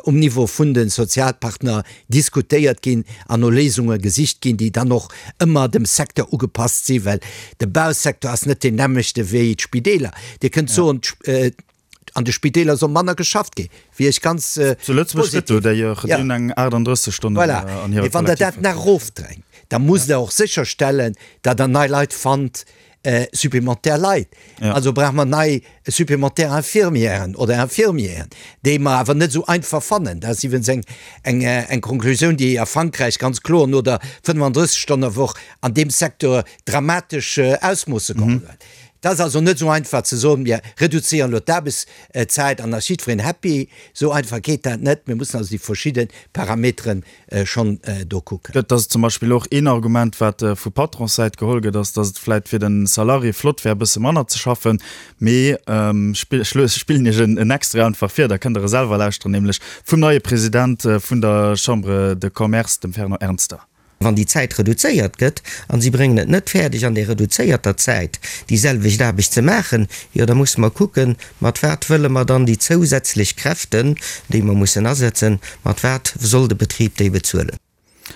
um Niveau vun de Sozialpartner diskutéiert ginn an no Léisunge gesicht ginn, déi dann och ëmmer dem Secteur ugepasst sinn, well de Bausecteur ass net deen nämmlechte wéi d'Spideeler. Dir kënnt soen, d'Sp. an de Spideeler soll manner geschafft ginn, wier ech ganz positiv. Zu Lëtzebuerg gëtt do d'ailleurs déi hunn eng 38 Stonnen Voilà. an hire Mee wann Der dat nach Kollektivverträg. erofdrängt, da musst Der och sécherstellen, datt Der nei Leit fannt, supplémentaire Leit. Ja. Also brauche mer nei supplémentaire Infirmièren oder Infirmieren, déi mer awer net esou einfach fannen. Dat ass iwwens eng, eng, eng Konklusioun, déi a Frankräich ganz kloer no der 35-Stonne-Woch an deem Secteur dramatesch Ausmoosse geholl huet. Et ass also net esou einfach ze soen, mir reduzéieren elo d'Aarbechtszäit an da ass jiddwereen happy. Esou einfach geet dat net. Mir mussen also déi verschidde Parameteren schonn do kucken. Dat ass zum Beispill och een Argument, wat vu Patronssäit geholl gëtt, ass, datt et vläicht fir de Salarié flott wär, e bësse manner ze schaffen. Mee ech spillen Iech en Extrait einfach vir, da kënnt Der e selwer lauschteren, nämlech vum neie President vun der Chambre de Commerce, dem Fernand Ernster. Wann déi Zäit reduzéiert gëtt an si bréngen et net fäerdeg an där reduzéierter Zäit déi selwecht Aarbecht ze maachen, jo da musse mer kucken, mat wat wëlle mer dann déi zousätzlech Kräften, déi mer mussen asetzen, mat wat soll de Betrib déi bezuelen?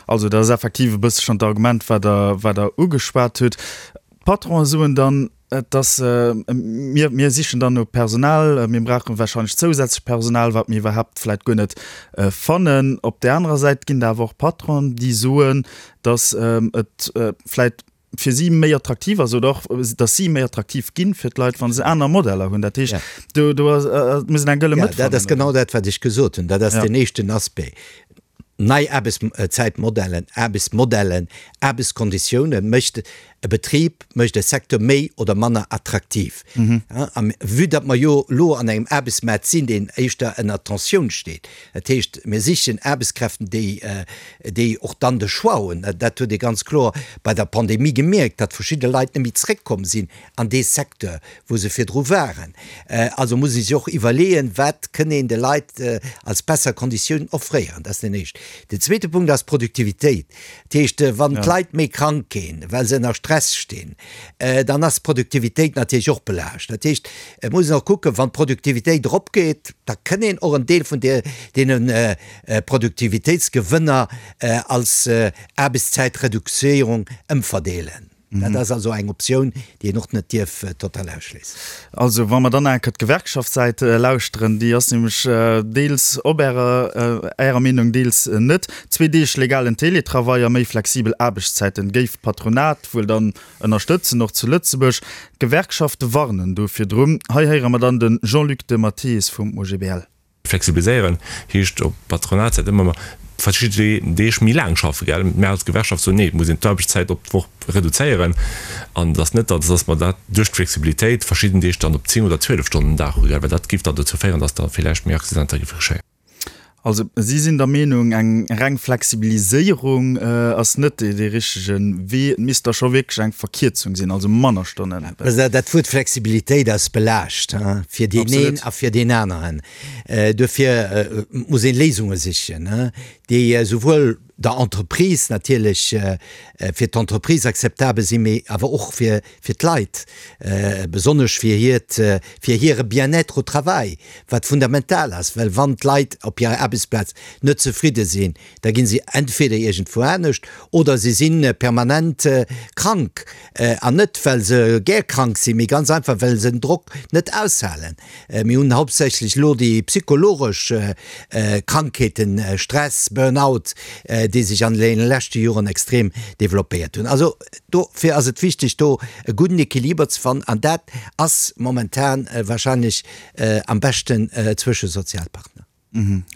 Also dat ass effektiv e bësse schonn d'Argument, wat Der, wat Der ugeschwat hutt. D'Patronen soen dann, Et ass, mir, mir sichen dann no Personal, mir brauche wahrscheinlech zousätzlech Personal, wat mir iwwerhaapt vläicht guer net fannen. Op där anerer Säit ginn et awer och Patronen, déi soen, datt et vläicht fir si méi attraktiv ass oder och, datt si méi attraktiv ginn fir d'Leit, wa se aner Modeller hunn. Dat heescht, do, do ass, muss een eng gëlle Mëtt fannen. Ja, dat ass genau dat, wat ech gesot hunn. Dat ass deen éischten Aspect. Nei Aarbechtszäitmodellen, Aarbechtsmodellen, Aarbechtskonditioune mécht e Betrib, mécht e Secteur méi oder manner attraktiv. A vue datt mer jo elo an engem Aarbechtsmaart sinn, deen éischter ënner Tensioun steet, dat heescht, mir sichen Aarbechtskräften, déi, déi och dann de Choix hunn, dat huet ee ganz kloer bei der Pandemie gemierkt, datt verschidde Leit net méi zréckkomm sinn an dee Secteur, wou se virdru waren. Also muss ee sech och iwwerleeën, wat kënn een de Leit als besser Konditiounen offréieren. Dat ass deen éischten. Den zweete Punkt ass d'Produktivitéit. Dat heescht, wann d'Leit méi krank ginn, well se ënner Stress stinn, dann ass d'Produktivitéit natierlech och belaascht. Dat heescht, et muss een och kucken, wann d'Produktivitéit eropgeet, da kënn een och en Deel vun deene Produktivitéitsgewënner als Aarbechtszäitreduzéierung ëmverdeelen. Dat ass also eng Optioun, déi een och net dierf total ausschléissen. Also, wa mer dann enker d'Gewerkschaftssäit lauschteren, déi ass nämlech deels op Ärer, Ärer Meenung, deels net. Zwee Deeg legalen Teletravail a méi flexibel Aarbechtszäiten géif d'Patronat wuel dann ënnerstëtzen, och zu Lëtzebuerg. D'Gewerkschafte warnen do virdrun. Hei héiere mer dann de Jean-Luc de Matteis vum OGBL. Flexibiliséieren heescht op Patronatssäit ëmmer verschidde Deeg méi laang schaffen, gell? Mär als Gewerkschaft soen, nee, et muss een d'Aarbechtszäit op d'Woch reduzéieren an et ass net, datt mer dat duerch d'Flexibilitéit verschidden Deeg dann op 10 oder 12 Stonnen den Dag hu, gell? Well dat géif dann dozou féieren, datt da villäicht méi Accidenter géife geschéien. Also si sinn der Meenung, eng reng Flexibiliséierung ass net dee richtege Wee. Et misst da scho wierklech eng Verkierzung sinn, also manner Stonnen. Dat Wuert Flexibilitéit ass belaascht, fir deen een a fir deen aneren. Duerfir muss ee Léisunge sichen, déi esouwuel der Entreprise natierlech, fir d'Entreprise akzeptabel sinn, mee awer och fir d'Leit, besonnesch fir hiert, fir hire Bien-être au travail, wat fundamental ass. Well wann d'Leit op hirer Aarbechtsplaz net zefridde sinn, da ginn se entweder iergendwou anescht oder se si permanent krank. An net well se gär krank sinn, mee ganz einfach well se den Drock net aushalen. Mir hunn hauptsächlech elo déi psychologesch Krankheeten, Stress, Burn-out, déi sech an deene leschte Joren extrem developpéiert hunn. Also dofir ass et wichteg do e gudden Equiliber ze fannen an dat ass momentan wahrscheinlech am beschten zwësche Sozialpartner.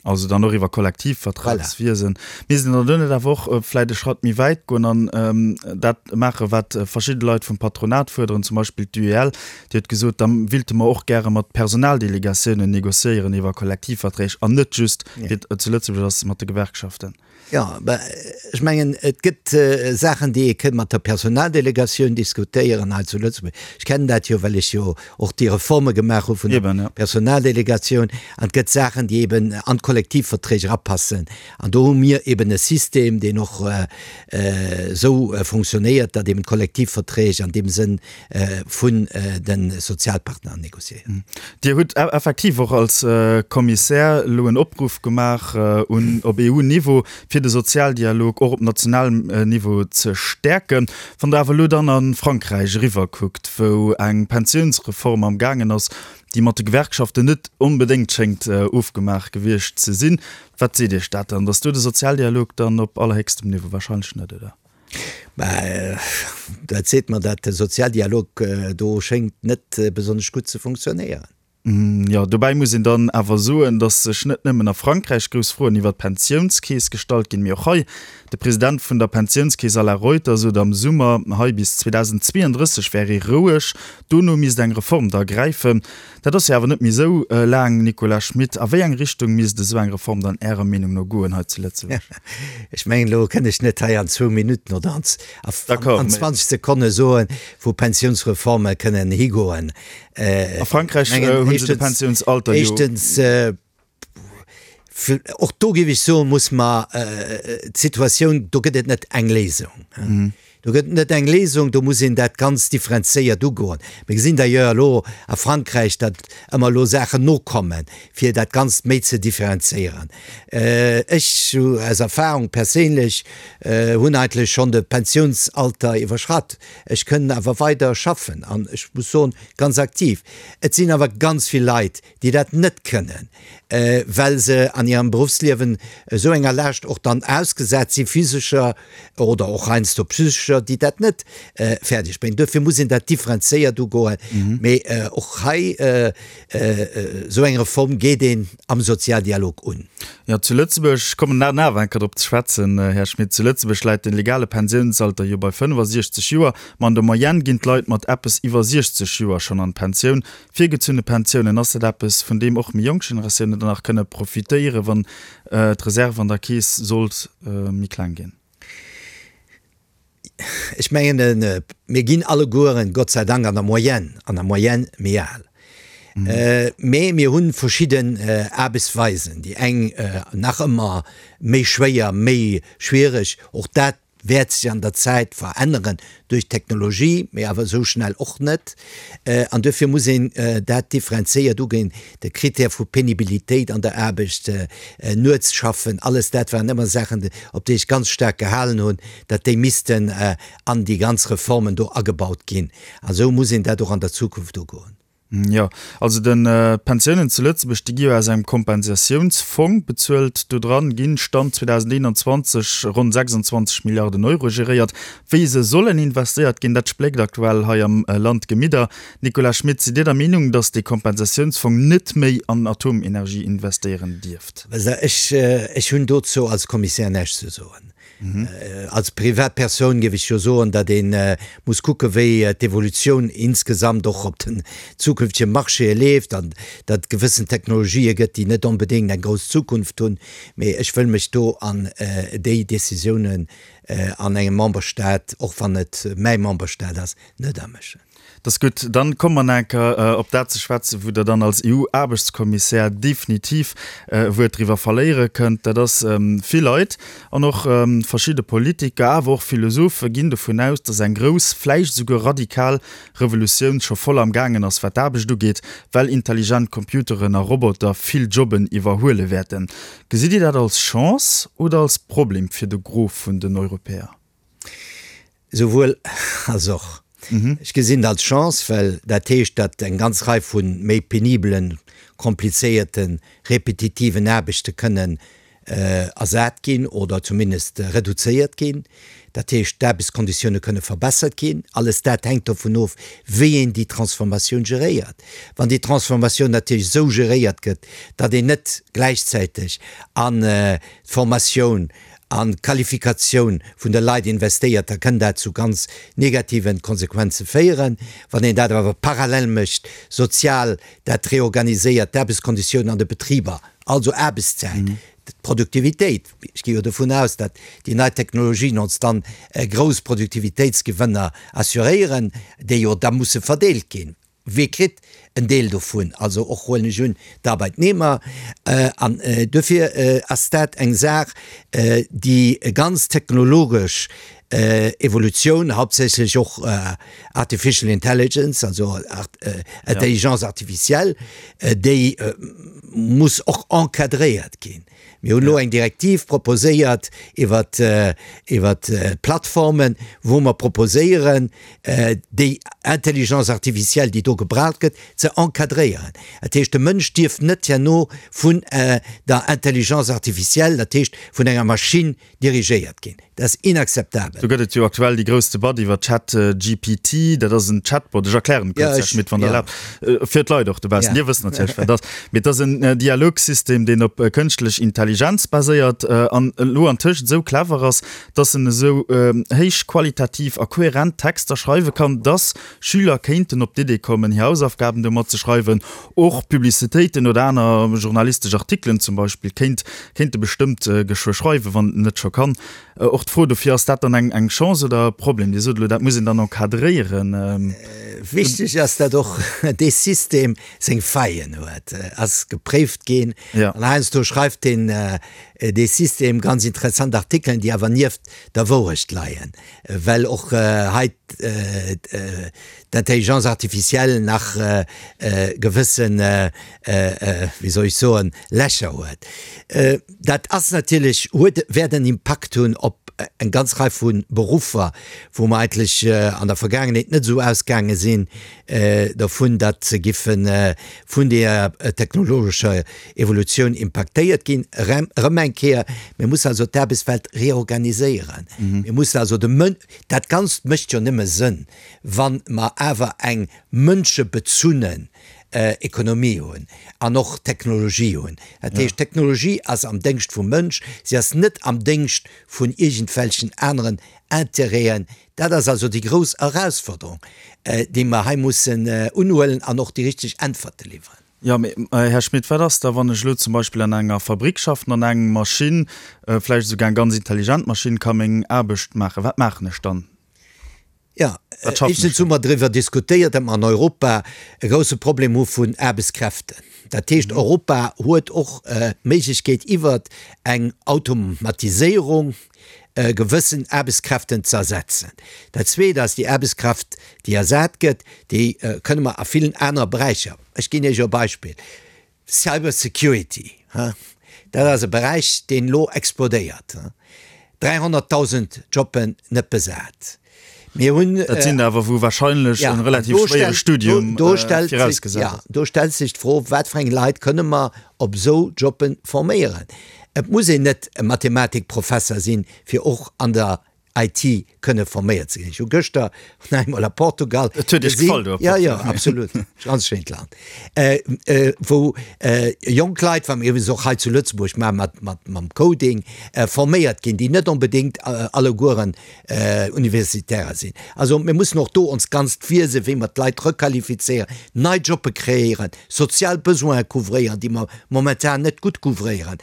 Also dann och iwwer Kollektivvertragswiesen. Misst een dann do net awer och vläicht e Schratt méi wäit goen an dat maachen, wat verschidde Leit vum Patronat fuerderen, zum Beispill d'UEL, déi huet gesot, da willte mer och gäre mat Personaldelegatiounen négociéieren iwwer Kollektivverträg an net just, wéi et zu Lëtzebuerg ass, mat de Gewerkschaften. Jo, mä ech mengen, et gëtt Saachen, déi ee kënnt mat der Personaldelegatioun diskutéieren hei zu Lëtzebuerg. Ech kennen dat jo, well ech jo och déi Reforme gemaach hu vun der Personaldelegatioun. An et gëtt Saachen, déi eben an d'Kollektivverträg erapassen. An do hu mir eben e System, deen och esou fonctionnéiert, datt eben d'Kollektivverträg an deem Sënn vun de Sozialpartner négociéiert. Dir hutt effektiv och als Kommissär elo en Opruff gemaach un op EU-Niveau, fir de Sozialdialog och op nationalem Niveau ze stäerken. Wann Der awer elo dann a Frankräich eriwwerkuckt, wou eng Pensiounsreform am gaangen ass. déi mat de Gewerkschaften net onbedéngt schéngt ofgemaach gewiescht ze sinn. Wat seet Iech dat dann? Datt do de Sozialdialog dann op allerhéchstem Niveau? Wahrscheinlech net, oder? Mä dat seet mer, datt de Sozialdialog do schéngt net besonnesch gutt ze funktionéieren. Jo, dobäi muss een dann awer soen, datt sech net nëmmen a Frankräich grouss Froen iwwer d'Pensiounskeess gestallt ginn, mee och hei. De President vun der Pensiounskeess Alain Reuter sot am Summer hei, bis 2032 wär ee roueg, dono misst eng Reform da gräifen. Dat ass jo awer net méi esou laang, Nicolas Schmit. A wéi eng Richtung misst esou eng Reform dann Ärer Meenung no goen hei zu Lëtzebuerg? Ech mengen, elo kënn ech net hei an zwou Minutten oder an 20 Sekonne soen, wou Pensiounsreforme kënnen higoen. A Frankräich hunn se de Pensiounsalter jo. Éischtens, och do géif ech soen, muss mer d'Situatioun, do gëtt et net eng Léisung. Do gëtt et net eng Léisung, do muss een dat ganz differenzéiert ugoen. Mir gesinn d'ailleurs elo a Frankräich, datt ëmmer elo Saachen nokommen, fir dat Ganzt méi ze differenzéieren. Ech, aus Erfahrung perséinlech, hunn eigentlech schonn de Pensiounsalter iwwerschratt. Ech kënnen awer weider schaffen an ech muss soen, ganz aktiv. Et sinn awer ganz vill Leit, déi dat net kënnen, well se an hirem Beruffsliewen esou enger Laascht och dann ausgesat si physescher oder och heiansdo psychescher, déi dat net fäerdeg bréngen. Duerfir muss een dat differenzéiert ugoen. Mee och hei, esou eng Reform geet een am Sozialdialog un. Jo, zu Lëtzebuerg, ech kommen nach awer eng Kéier drop ze schwätzen, Här Schmit, zu Lëtzebuerg läit de legale Pensiounsalter jo bei 65 Joer, ma an der Moyenne ginn d'Leit mat eppes iwwer 60 Joer schonn an d'Pensioun. Virgezunne Pensiounen, ass dat eppes, vun deem och méi jonk Generatiounen dann nach kënne profitéieren, wann d'Reserve an der Keess sollt méi kleng ginn? Ech mengen, mir ginn allegueren, Gott sei Dank, an der Moyenne, an der Moyenne méi al. Mee mir hu verschidden Aarbechtsweisen, déi eng nach ëmmer méi schwéier, méi schwiereg. Och dat wäert sech an der Zäit veränneren duerch d'Technologie, mee awer esou schnell och net. An duerfir muss een dat differenzéiert uginn. De Critère vu Penibilitéit an der Aarbecht, nuets schaffen, alles dat waren ëmmer Saachen, op déi ech ganz staark gehalen hunn, datt déi missten an déi ganz Reformen do agebaut ginn. A sou muss een dat och an der Zukunft ugoen. Jo, also de d'Pensiounen zu Lëtzebuerg, déi gi jo aus engem Kompensatiounsfong bezuelt. Do dran ginn, Stand 2021, ronn 26 Milliarden Euro geréiert. Wéi se sollen investéiert ginn, dat spléckt aktuell hei am Land d'Gemidder. Nicolas Schmit, sidd Dir der Meenung, datt dee Kompensatiounsfong net méi an Atomenergie investéieren dierft? Ech, ech hunn dozou als Kommissär näischt ze soen. Als Privatpersoun géif ech jo soen, datt ee muss kucke wéi d'Evolutioun insgesamt och op den zukünftege Marchéë leeft an datt et gewëssen Technologië gëtt, déi net onbedéngt eng grouss Zukunft hunn. Mee ech wëll mech do an déi Décisiounen an engem Memberstaat, och wann et mäi Memberstaat ass, net amëschen. Dat ass gutt. Dann komme mer nach eng Kéier op dat ze schwätzen, wou Der dann als EU-Aarbechtskommissär definitiv e Wuert driwwer verléiere kënnt. Dat ass, vill Leit an och verschidde Politiker, awer och Philosophe ginn dovun aus, dass eng grouss, vläicht esouguer radikal Revolutioun scho voll am gaangen ass, wat d'Aarbecht ugeet, well intelligent Computeren a Roboter vill Jobben iwwerhuele wäerten. Gesitt Dir dat als Chance oder als Problem fir de Gros vun den Europäer? Souwuel als och. Ech gesinn et als Chance, well dat heescht, datt eng ganz Rei vu méi penibelen, komplizéierten, repetitiven Aarbechte kënnen ersat ginn oder zumindest reduzéiert ginn. Dat heescht, d'Aarbechtskonditioune kënne verbessert ginn. Alles dat hänkt dovun of, wéi een déi Transformatioun geréiert. Wann déi Transformatioun natierlech esou geréiert gëtt, datt een net gläichzäiteg an d'Formatioun, an d'Qualifikatioun vun de Leit investéiert, da kënn dat zu ganz negativen Konsequenze féieren. Wann een dat awer parallel mécht, sozial dat reorganiséiert, d'Aarbechtskonditiounen an de Betriber, also Aarbechtszäit, d'Produktivitéit, ech gi jo dovun aus, datt déi nei Technologien ons dann grouss Produktivitéitsgewënner assuréieren, déi jo da musse verdeelt ginn. Wie kritt en Deel dovun? Also och, huelen ech un, d'Arbeitnehmer. An duerfir ass dat eng Saach, déi ganz technologesch Evolutioun, hauptsächlech och Artificial Intelligence, also Intelligence artificielle, déi. muss och encadréiert ginn. Mir hunn elo eng Direktiv proposéiert iwwert iwwert d'Plattformen, wou mer proposéieren, déi Intelligence artificielle, déi do gebraucht gëtt, ze encadréieren. Dat heescht, de Mënsch dierf net herno vun der Intelligence artificielle, dat heescht vun enger Maschinn, dirigéiert ginn. Dat ass inakzeptabel. Do gëtt et jo aktuell déi grouss Debatt iwwer ChatGPT. Dat ass en Chatbot. Ech erklären et kuerz, Här Schmit, wann Der erlaabt, fir d'Leit och dobaussen. Dir wësst natierlech, wat et ass. Mee et ass en Dialogsystem, deen op kënschtlech Intelligenz baséiert an elo antëscht esou clever ass, dass en esou héich qualitativ a kohärent Texter schreiwe kann, dass Schüler kéinten op d'Idee kommen, hir Hausaufgaben domat ze schreiwen. Och Publicitéiten oder aner journalistesch Artikelen zum Beispill kéint kéint e bestëmmt geschwë schreiwen, wann en net scho kann. Och d'Fro dofir, Ass dat dann eng eng Chance oder e Problem? Dir sot elo, dat muss een dann encadréieren. Wichteg ass, datt och dee System seng Faillen huet, ass gepréift ginn. An heiansdo schreift deen dee System ganz interessant Artikelen, déi awer nieft der Wourecht leien, well och hei d'Intelligence artificielle nach gewëssen, wéi soll ech soen, Lächer huet. Dat ass natierlech, huet, wäert en Impakt hunn op eng ganz Rei vu Beruffer, wou mer eigentlech an der Vergaangenheet net esou ausgaange sinn dovun, datt se giffe vun deeër technologescher Evolutioun impaktéiert ginn. Erëm eng Kéier, mir mussen also d'Aarbechtswelt reorganiséieren. Mir mussen also de Mën, dat Ganzt mécht jo nëmme Sënn, wa mer awer eng mënschebezunnen Ekonomie hunn an och Technologie hunn. Dat heescht, d'Technologie ass am Déngscht vum Mënsch, si ass net am Déngscht vun iergendwelchen aneren Intérêten. Dat ass also déi grouss Erausforderung, déi mer hei mussen unhuelen an och déi richteg Äntwerte liwweren. Jo, mee Här Schmit, wat ass da, wann ech elo zum Beispill an enger Fabrick schaffen an eng Maschinn, vläicht esouguer eng ganz intelligent Maschinn, ka meng Aarbecht maachen? Wat maachen ech dann? Jo, éischtens hu mer driwwer diskutéiert, datt mer an Europa e grousse Problem hu vun Aarbechtskräften. Dat heescht, Europa huet och d'Méiglechkeet, iwwert eng Automatiséierung gewëssen Aarbechtskräften ze ersetzen. Dat Zweet ass, déi Aarbechtskraft, déi ersat gëtt, déi kënne mer a villen anere Beräicher, ech ginn Iech e Beispill, Cyber Security, dat ass e Beräich, deen elo explodéiert, 300.000 Jobben net besat. Mir hunn. Dat sinn der awer, wou wahrscheinlech e relativ schwéiere Studium virausgesat ass. Do stellt sech d'Fro, wat fir eng Leit kënne mer op esou Jobbe forméieren? Et muss een net e Mathematikprofesser sinn, fir och an der IT kënne forméiert ze ginn. Ech hu gëschter nach eemol a Portugal Et huet Iech gefall do a Portugal? Jo, jo, absolut. Ganz schéint Land. Wou jonk Leit, wat mir iwwregens och hei zu Lëtzebuerg maache mat, mat, mam Coding, forméiert ginn, déi net onbedéngt allegueren Universitärer sinn. Also mir mussen och do ons ganzt Wiese wéi mer d'Leit requalifizéieren, nei Jobbe kreéieren, sozial Besoine couvréieren, déi mer momentan net gutt couvréieren.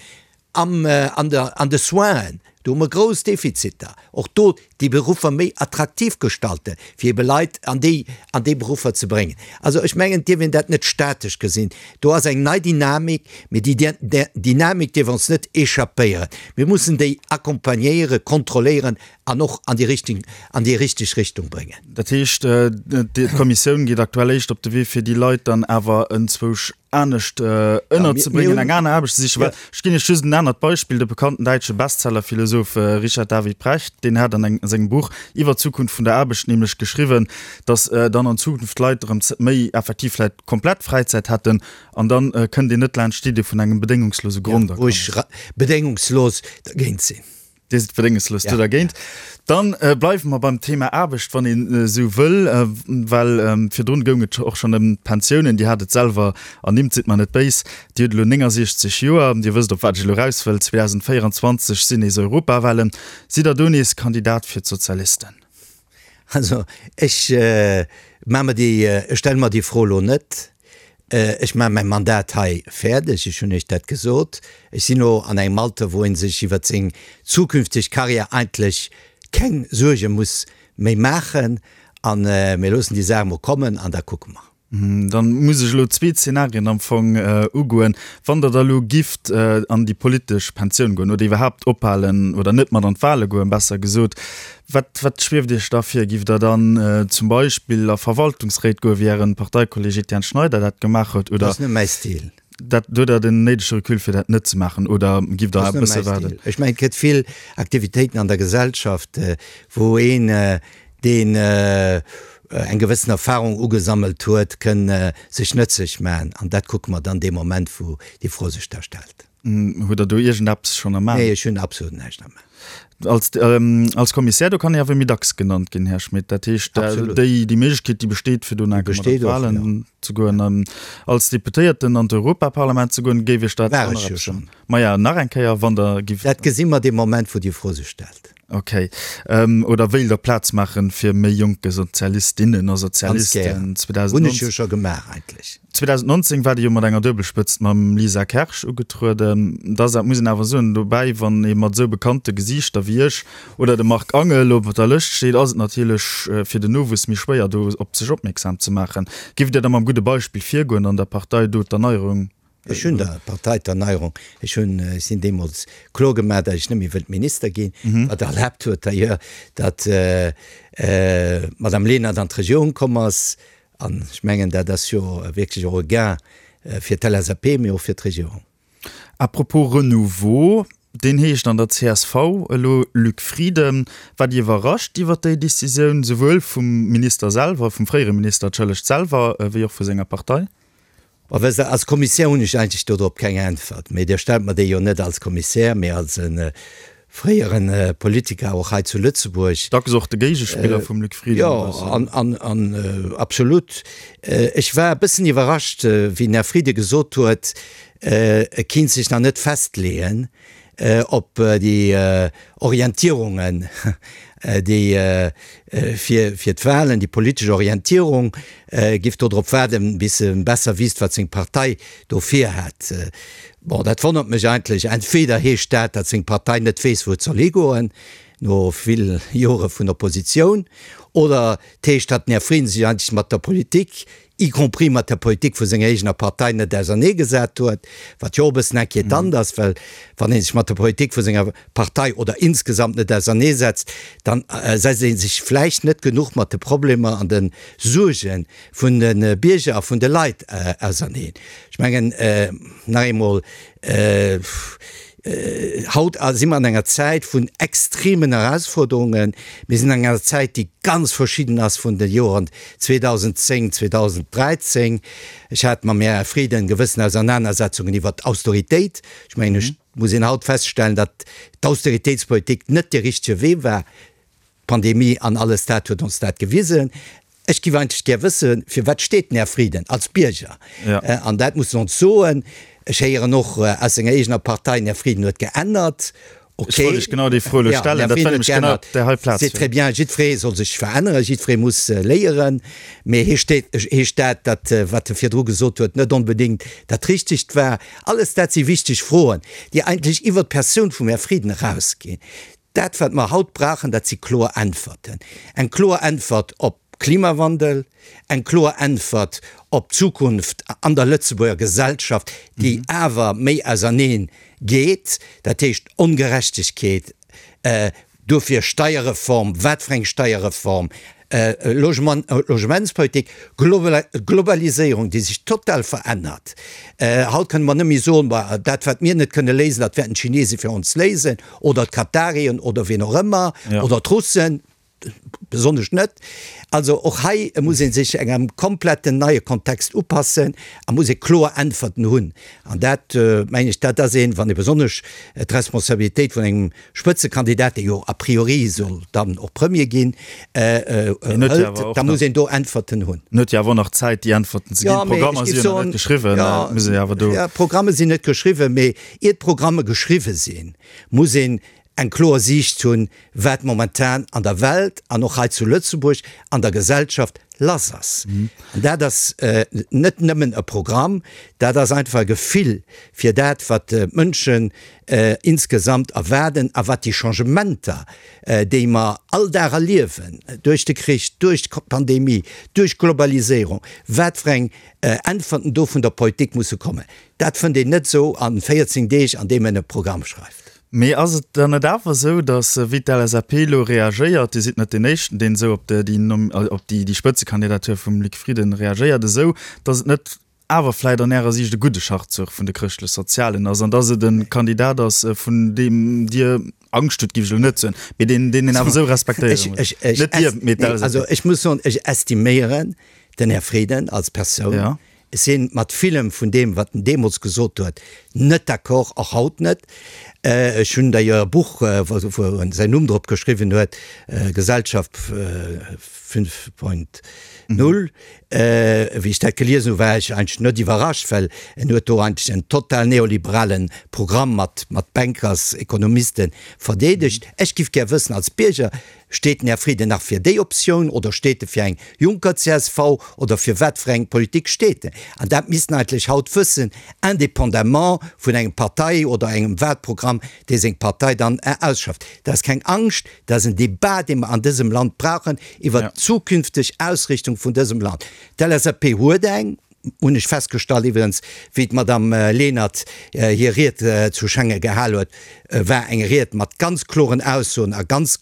Am, an der, an de Soinen, do hu mer grouss Defiziter. Och do déi Beruffer méi attraktiv gestalten, fir ebe Leit an déi, an déi Beruffer ze bréngen. Also ech mengen, et dierf een dat net statesch gesinn. Do ass eng nei Dynamik, mee déi Dynamik dierf ons net échappéieren. Mir mussen déi accompagnéieren, kontrolléieren an och an déi richteg, an déi richteg Richtung bréngen. Dat heescht, d'Kommissioun geet aktuell éischt op de Wee, fir déi Leit dann awer enzwousch anescht ënnerzebréngen, eng aner Aarbecht ze sichen. Well ech ginn Iech just en anert Beispill, De bekannten däitsche Bestsellerphilosoph Richard David Precht, deen hat an engem sengem Buch iwwer d'Zukunft vun der Aarbecht nämlech geschriwwen, datt dann an Zukunft d'Leit erëm méi effektiv vläicht komplett Fräizäit hätten an dann kënnt een net laanscht d'Idee vun engem bedéngungslose Grondakommes. Wou ech bedéngungslos dergéint sinn. Dir sidd bedéngungslos do dergéint. Dann bleiwe mer beim Thema Aarbecht, wann een esou wëll, well virdrun goung et och schonn ëm d'Pensiounen. Dir hat et selwer ernimmt, sidd mer net béis, Dir hutt elo 69 Joer. Dir wësst, op wat ech elo eraus wëll, 2024 sinn nees Europawahlen. Sidd Der do nees Kandidat fir d'Sozialisten? Also ech maache mer déi, ech stelle mer déi Fro elo net. Ech maache mäi Mandat hei fäerdeg, ech hunn Iech dat gesot. Ech sinn elo an engem Alter, wou ee sech iwwert seng zukünfteg Karriär eigentlech keng Suerge muss méi maachen. A mir loossen déi Saach emol kommen an da kucke mer. Dann muss ech elo zwee Zenarien am Fong ugoen. Wann Der da elo gifft an déi politesch Pensioun goen oder iwwerhaapt ophalen oder net mat an d'Wahle goen, besser gesot, wat, wat schwieft Iech da vir? Giff Der dann zum Beispill a Verwaltungsréit goen, wéi Ären Parteikolleg Etienne Schneider dat gemaach huet, oder? Dat ass net mäi Stil. Dat, hutt Der den néidege Recul fir dat net ze maachen oder giff Der e bësse waarden? Ech mengen, et gëtt vill Aktivitéiten an der Gesellschaft, wou een, deen eng gewëssen Erfahrung ugesammelt huet, kënn sech nëtzlech maachen. An dat kucke mer dann dee Moment, wou déi Fro sech da stellt. Hutt Der do iergendeppes schonn am An? Nee, ech hunn absolut näischt am An. Als, als Kommissär, do kann ee awer méi dacks genannt ginn, Här Schmit. Dat heescht, déi, déi Méiglechkeet, déi besteet, fir do nach eng Kéier mat an d'Wahlen ze goen. An als Deputéierten an d'Europaparlament ze goen, géif Iech dat War ech jo schonn. Maja, nach eng Kéier, wann Der giff. Dat gesi mer dee Moment, wou déi Fro sech stellt. Ok. Oder wéilt Der Plaz maachen fir méi jonke Sozialistinnen a Sozialisten? Ganz gär. Hunn ech jo scho gemaach eigentlech. 2019 war Dir jo mat enger Duebelspëtzt mam Lisa Kersch ugetrueden. Da ass, dat muss een awer soen, dobäi, wann ee mat esou bekannte Gesiichter wéi Iech oder dem Marc Angel op der Lëscht steet, ass et natierlech fir den Nowuess méi schwéier do op sech opmierksam ze maachen. Giff Dir da mam gudde Beispill virgoen an der Partei do d'Erneierung Ech hunn der Partei d'Erneierung, ech hunn, ech sinn deemools kloer gemaach, datt ech net méi wëllt Minister ginn, wat erlaabt huet d'ailleurs, datt d'Madame Lenert an d'Regierung komm ass. An ech mengen, dat ass jo wierklech och e Gain fir d'LSAP, mee och fir d'Regierung. À propos Renouveau, deen heescht an der csv elo Luc Frieden. Waart Dir iwwerrascht iwwer déi Decisioun, souwuel vum Minister selwer, vum fréiere Minister, entschëllegt, selwer, wéi och vu senger Partei? Bon, wësst Der, als Kommissär hunn ech eigentlech dodrop keng Äntwert, mee Dir stellt mer déi jo net als Kommissär, mee als e fréiere Politiker och hei zu Lëtzebuerg. Dacks och de Géigespiller vum Luc Frieden e bëssen. Jo, an, an absolut. Ech war e bëssen iwwerrascht, wéi den Här Frieden gesot huet, e kinnt sech nach net festleeën, op déi Orientierungen, déi fir fir d'Wahlen, déi politesch Orientierung, giff do drop waarden, bis e besser wisst, wat seng Partei do virhätt. Bon, dat wonnert mech eigentlech. Entweder heescht dat, datt seng Partei net weess, wou et soll higoen, no vill Jore vun Oppositioun, oder et heescht, datt den Här Frieden sech eigentlech mat der Politik y compris mat der Politik vu senger eegener Partei, net auserneegesat huet, wat jo och e bëssen inquietant ass, well wann ee sech mat der Politik vu senger Partei oder insgesamt net auserneesetzt, dann setzt ee sech vläicht net genuch mat de Problemer an de Suerge vun de Bierger a vun de Leit auserneen. Ech mengen, nach eemol, Haut si mer an enger Zäit vun extremen Erausforderungen. Mir sinn an enger Zäit, déi ganz verschidden ass vun de Joren 2010, 2013. Ech hat mam Här Frieden gewëssen Ausernanersetzungen iwwert d'Austeritéit. Ech mengen, ech muss een haut feststellen, datt d'Austeritéitspolitik net dee richtege Wee war. D'Pandemie an alles dat huet ons dat gewisen. Ech giff eigentlech gär wëssen, fir wat steet den Här Frieden als Bierger? An dat muss en ons soen. Ech héieren och aus senger eegener Partei, den Här Frieden huet geännert. Ok. Ech wollt lech genau déi Fro elo stellen. Dat war nämlech genau op där hei Plaz. C'est très bien. Jiddweree soll sech veränneren, jiddweree muss léieren. Mee heescht heescht dat, datt wat e virdru gesot huet, net onbedéngt dat Richtegt war? Alles dat si wichteg Froen, déi eigentlech iwwert d'Persoun vum Här Frieden erausginn. Dat, wat mer haut brauchen, dat si kloer Äntwerten. Eng kloer Äntwert op Klimawandel, eng kloer Äntwert op d'Zukunft an der Lëtzebuerger Gesellschaft, déi awer méi auserneen geet, dat heescht Ongerechtegkeet, dofir Steierreform, wat fir eng Steierreform, Logement, Logementspolitik, Globaliséierung, déi sech total verännert. Haut kënne mer net méi soen, Bah, dat wat mir net kënne léisen, dat wäerten d'Chinese fir ons léisen oder d'Katarien oder wien och ëmmer oder d'Russen, besonnesch net. Also och hei muss ee sech engem kompletten neie Kontext upassen a muss ee kloer Äntwerten hunn. An dat, mengen ech, dat ass een, wann ee besonnesch d'Responsabilitéit vun engem Spëtzekandidat, dee jo a priori soll dann och Premier ginn, hëlt, da muss een do Äntwerten hunn. En huet jo awer och nach Zäit, déi Äntwerten ze ginn. D'Programmer si jo nach net geschriwwen. Et muss ee jo awer do. Jo, d'Programme sinn net geschriwwen, mee ier d'Programme geschriwwe sinn, muss een eng kloer Siicht hunn, wat momentan an der Welt an och hei zu Lëtzebuerg an der Gesellschaft lass ass. An dat ass net nëmmen e Programm, dat ass einfach e Gefill fir dat, wat d'Mënschen insgesamt erwaarden a wat déi Changementer, déi mer all Dag erliewen, duerch de Krich, duerch d'Pandemie, duerch d'Globaliséierung, wat fir eng Äntwerten do vun der Politik musse kommen. Dat fënnt een net esou a 14 Deeg, an deem een e Programm schreift. Mee ass et dann net awer esou, datt, wéi d'LSAP elo reagéiert, Dir sidd net deen Éischten, deen esou op déi Spëtzekandidatur vum Luc Frieden reagéiert, esou datt et net. awer vläit an Ärer Siicht e gudde Schachzuch vun de Chrëschtlech-Sozialen ass an dass et e Kandidat ass, vun deem Dir Angscht hutt, géif ech elo net soen, mee deen, deen een awer esou respektéiere muss. Net Dir, mee d'LSAP. Also ech muss soen, ech estiméieren den Här Frieden als Persoun. Ech si mat villem vun deem, wat en deemools gesot huet, net d'accord, och haut net. Ech hunn d'ailleurs e Buch, wou en säin Numm drop geschriwwen huet, Gesellschaft 5.0. Wéi ech dat geliesen hu war ech eigentlech net iwwerrascht, well en huet do eigentlech en total neoliberale Programm mat mat Bankers, Ekonomisten verdeedegt. Ech giff gär wëssen als Bierger, steet den Här Frieden nach fir déi Optioun oder steet e fir eng Juncker-CSV oder fir wat fir eng Politik steet en? An dat misst en eigentlech haut wëssen, indépendamment vun engem Partei oder engem Wahlprogramm, dee seng Partei dann ausschafft. Dat ass keng Angscht, Dat ass en Debat, dee mer an dësem Land brauchen iwwert d'zukünfteg Ausrichtung vun dësem Land. D'LSAP huet eng, hunn ech festgestallt iwwregens, wéi d'Madame Lenert hir Ried zu Schengen gehal huet, war eng Ried mat ganz kloren Aussoen a ganz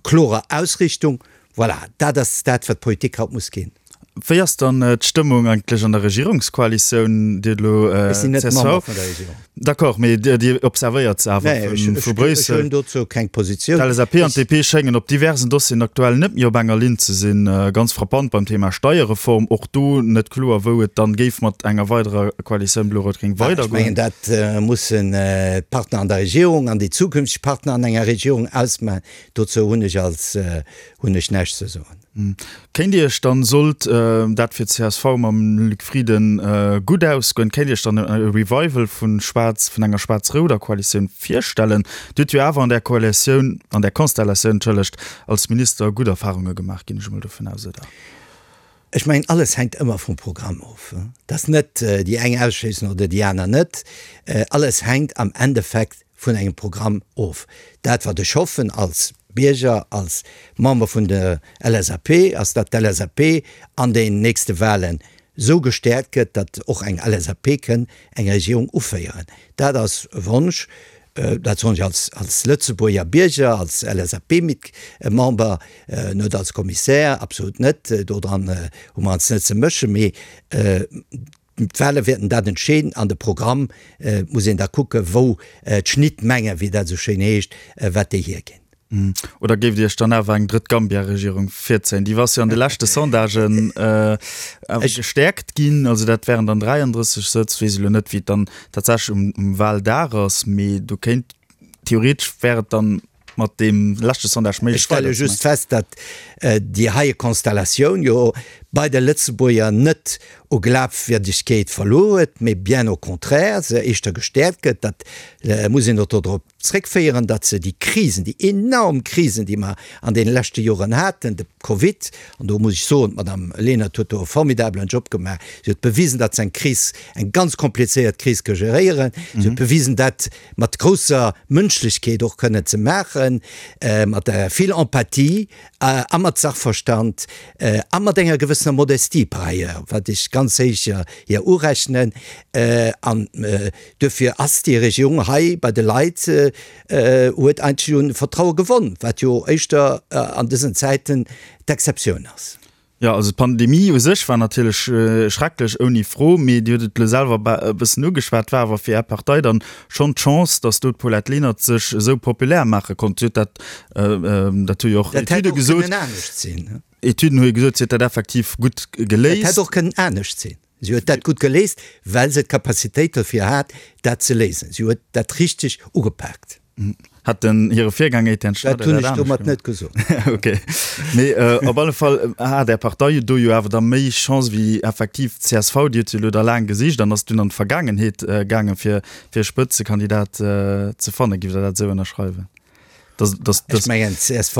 klorer Ausrichtung. Voilà, dat ass dat, wat d'Politik haut muss ginn. Wéi ass dann d'Stëmmung eigentlech an der Regierungskoalitioun? Dir hutt elo Ech sinn net Member vun der Regierung. D'accord, mee Dir observéiert se awer vu Bréissel. Ech hunn dozou keng Positioun. D'LSAP an d'DP schéngen op diversen Dossieren aktuell net méi op enger Linn ze sinn. Ganz frappant beim Thema Steierreform. Och do net kloer, wou et dann géif mat enger weiderer Koalitioun Blo-Rout-Gréng weidergoen. Ech mengen, dat mussen d'Partner an der Regierung an déi zukünfteg Partner an enger Regierung ausmachen. Dozou hunn ech als hunn ech näischt ze soen. Kéint Dir Iech dann, sollt dat fir d'CSV mam Luc Frieden gutt ausgoen, kéint Dir Iech dann e Revival vu schwaarz, vun enger schwaarz-rouder Koalitioun virstellen? Dir hutt jo awer an där Koalitioun, an där Konstellatioun, entschëllegt, als Minister gutt Erfarunge gemaach, ginn ech emol dovun aus, oder? Ech mengen, alles hänkt ëmmer vum Programm of. Et ass net déi eng ausschléissen oder déi aner net. Alles hänkt am Endeffekt vun engem Programm of. Dat, wat ech hoffen als Bierger, als Member vun der LSAP, ass, datt d'LSAP an den nächste Wahlen esou gestäerkt gëtt, datt och eng LSAP kënn eng Regierung uféieren. Dat ass e Wonsch, dat soen ech als, als Lëtzebuerger Bierger, als LSAP-Member, net als Kommissär, absolut net, dodran hu mer eis net ze mëschen, mee D'Wahle wäerten dat entscheeden. An de Programm muss een da kucken, wou d'Schnittmenge, wéi dat esou schéin heescht, wat déi hierginn. Oder géift Dir Iech dann awer eng drëtt Gambia-Regierung virzéien? Déi ass jo an de leschte Sondagen awer gestäerkt ginn. Also dat wären dann 33 Sëtz. Weess elo net, wéi et dann tatsächlech um Wahldag ass, mee do kéint theoretesch wär et dann mat deem leschte Sondage méiglech. Ech stelle just fest, datt déi heie Konstellatioun jo bei de Lëtzebuerger net u Glafwierdegkeet verluer huet, mee bien au contraire se éischter gestäerkt gëtt. Dat muss een och dodrop zréckféieren, datt se déi Krisen, déi enorm Krisen, déi mer an deene leschte Joren haten, de Covid, an do muss ech soen, d'Madame Lenert huet do e formidabelen Job gemaach, si huet bewisen, datt se eng Kris, eng ganz komplizéiert Kris ka geréieren, si huet bewisen, dat mat grousser Mënschlechkeet och kënnen ze maachen, mat vill Empathie a mat Sachverstand a mat enger gewëssener Modestie par ailleurs, wat ech ganz héich hir urechnen. An duerfir ass déi Regierung hei bei de Leit, huet eigentlech un Vertraue gewonn, wat jo éischter an dësen Zäiten d'Exceptioun ass. Jo, also d'Pandemie u sech war natierlech schrecklech, ouni Fro, mee Dir hutt et elo selwer e bëssen ugeschwat, war awer fir Är Partei dann schonn d'Chance, datt do d'Paulette Lenert sech esou populär maache konnt. Si huet dat, dat hu jo och Etüde gesot. Dat hätt och kënnen anescht sinn. Etüden hu jo gesot, si huet dat effektiv gutt geléist. Dat hätt och kënnen anescht sinn. Si huet dat gutt geléist, well se d'Capacitéit dofir hat, dat ze léisen. Si huet dat richteg ugepaakt. Hat den hire Virgänger Etienne Schneider dat hunn ech domat net gesot. Ok. Mee op alle Fall hat Är Partei do jo awer da méi Chance wéi effektiv d'CSV. Déi huet jo elo da laang gesicht an ass dunn an d'Vergaangenheet gaangen, fir fir e Spëtzekandidat ze fannen. Giff Der dat esou ënnerschreiwen? Dass, dass, dass. Ech mengen, d'CSV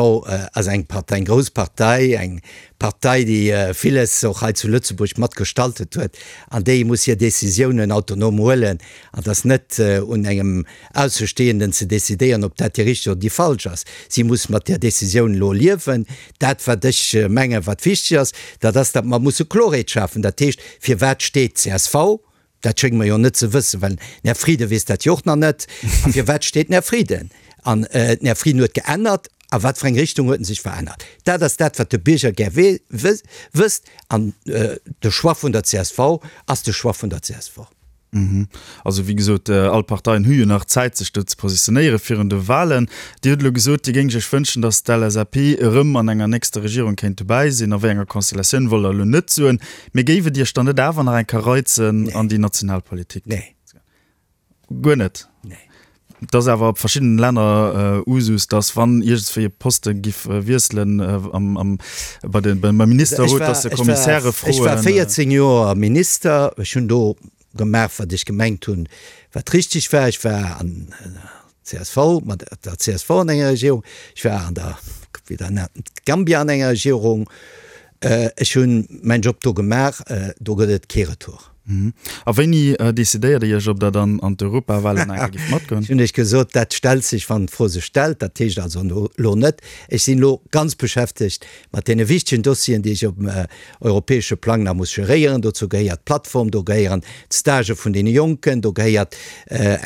ass eng Partei, eng grouss Partei, eng Partei, déi villes och hei zu Lëtzebuerg mat gestaltet huet an déi muss hir Décisiounen autonom huelen. An et ass net un engem Aussestehenden ze decidéieren, ob dat déi richteg oder déi falsch ass. Si muss mat där Décisioun elo liewen. Dat, wat ech mengen, wat wichteg ass, dat ass, datt mer musse Klorheet schafen. Dat heescht, firwat steet csv? Dat schénge mer jo net ze wëssen, well den Här Frieden weess dat jo och nach net. A firwat steet den Här Frieden? An den Här Frieden huet geännert. A wat fir eng Richtung huet en sech verännert? Dat ass dat, wat de Bierger gär wësst. An de Choix vun der csv ass de Choix vun der csv. Also wéi gesot, all Parteien hu jo nach Zäit, sech do ze positionéiere virun de Wahlen. Dir hutt elo gesot, Dir géingt Iech wënschen, datt d'LSAP erëm an enger nächster Regierung kéint dobäi sinn. A wéi enger Konstellatioun wollt Der elo net soen. Mee géif et Iech dann net awer nach eng Kéier reizen, an déi national Politik ze goen? Guer net? Nee. Et ass awer op verschiddenen Länner Usus, datt wann iergendswéi e Poste giff wiesselen am, am, bei de, beim Ministerrot, datt se Kommissäre froen. Ech war 14 Joer Minister. Ech hunn do gemaach, wat ech gemengt hunn, wat richteg war. Ech war an der csv, mat der csv an enger Regierung. Ech war an der, wéi der nennt, Gambia an enger Regierung. Ech hunn mäin Job do gemaach. Do gëtt et kee Retour. A wéini decidéiert Dir Iech, ob Der dann an d'Europawahlen nach eng Kéier gift matgoen? Ech hunn Iech gesot, dat stellt sech, wann d'Fro sech stellt. Dat heescht also elo net. Ech sinn elo ganz beschäftegt mat deene wichtegen Dossieren, déi ech op dem europäesche Plang nach muss geréieren. Dozou gehéiert d'Plattform, do gehéieren d'Stagë vun deene Jonken, do gehéiert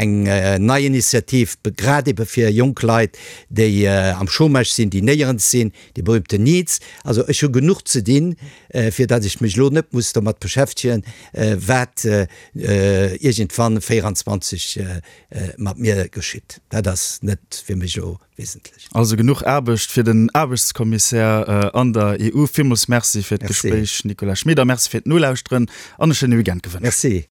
eng nei Initiativ grad ebe fir jonk Leit, déi am Chômage sinn, déi néierens sinn, Déi berühmten Needs. Also ech hu genuch ze dinn, fir datt ech mech elo net muss domat beschäftegen, wat iergendwann 24 mat mir geschitt. Dat ass net fir mech elo wesentlech. Also genuch Aarbecht fir den Aarbechtskommissär an der EU. Villmools Merci fir d'Gespréich, Nicolas Schmit, a Merci fir d'Nolauschteren an e schéine Weekend gewënscht. Merci.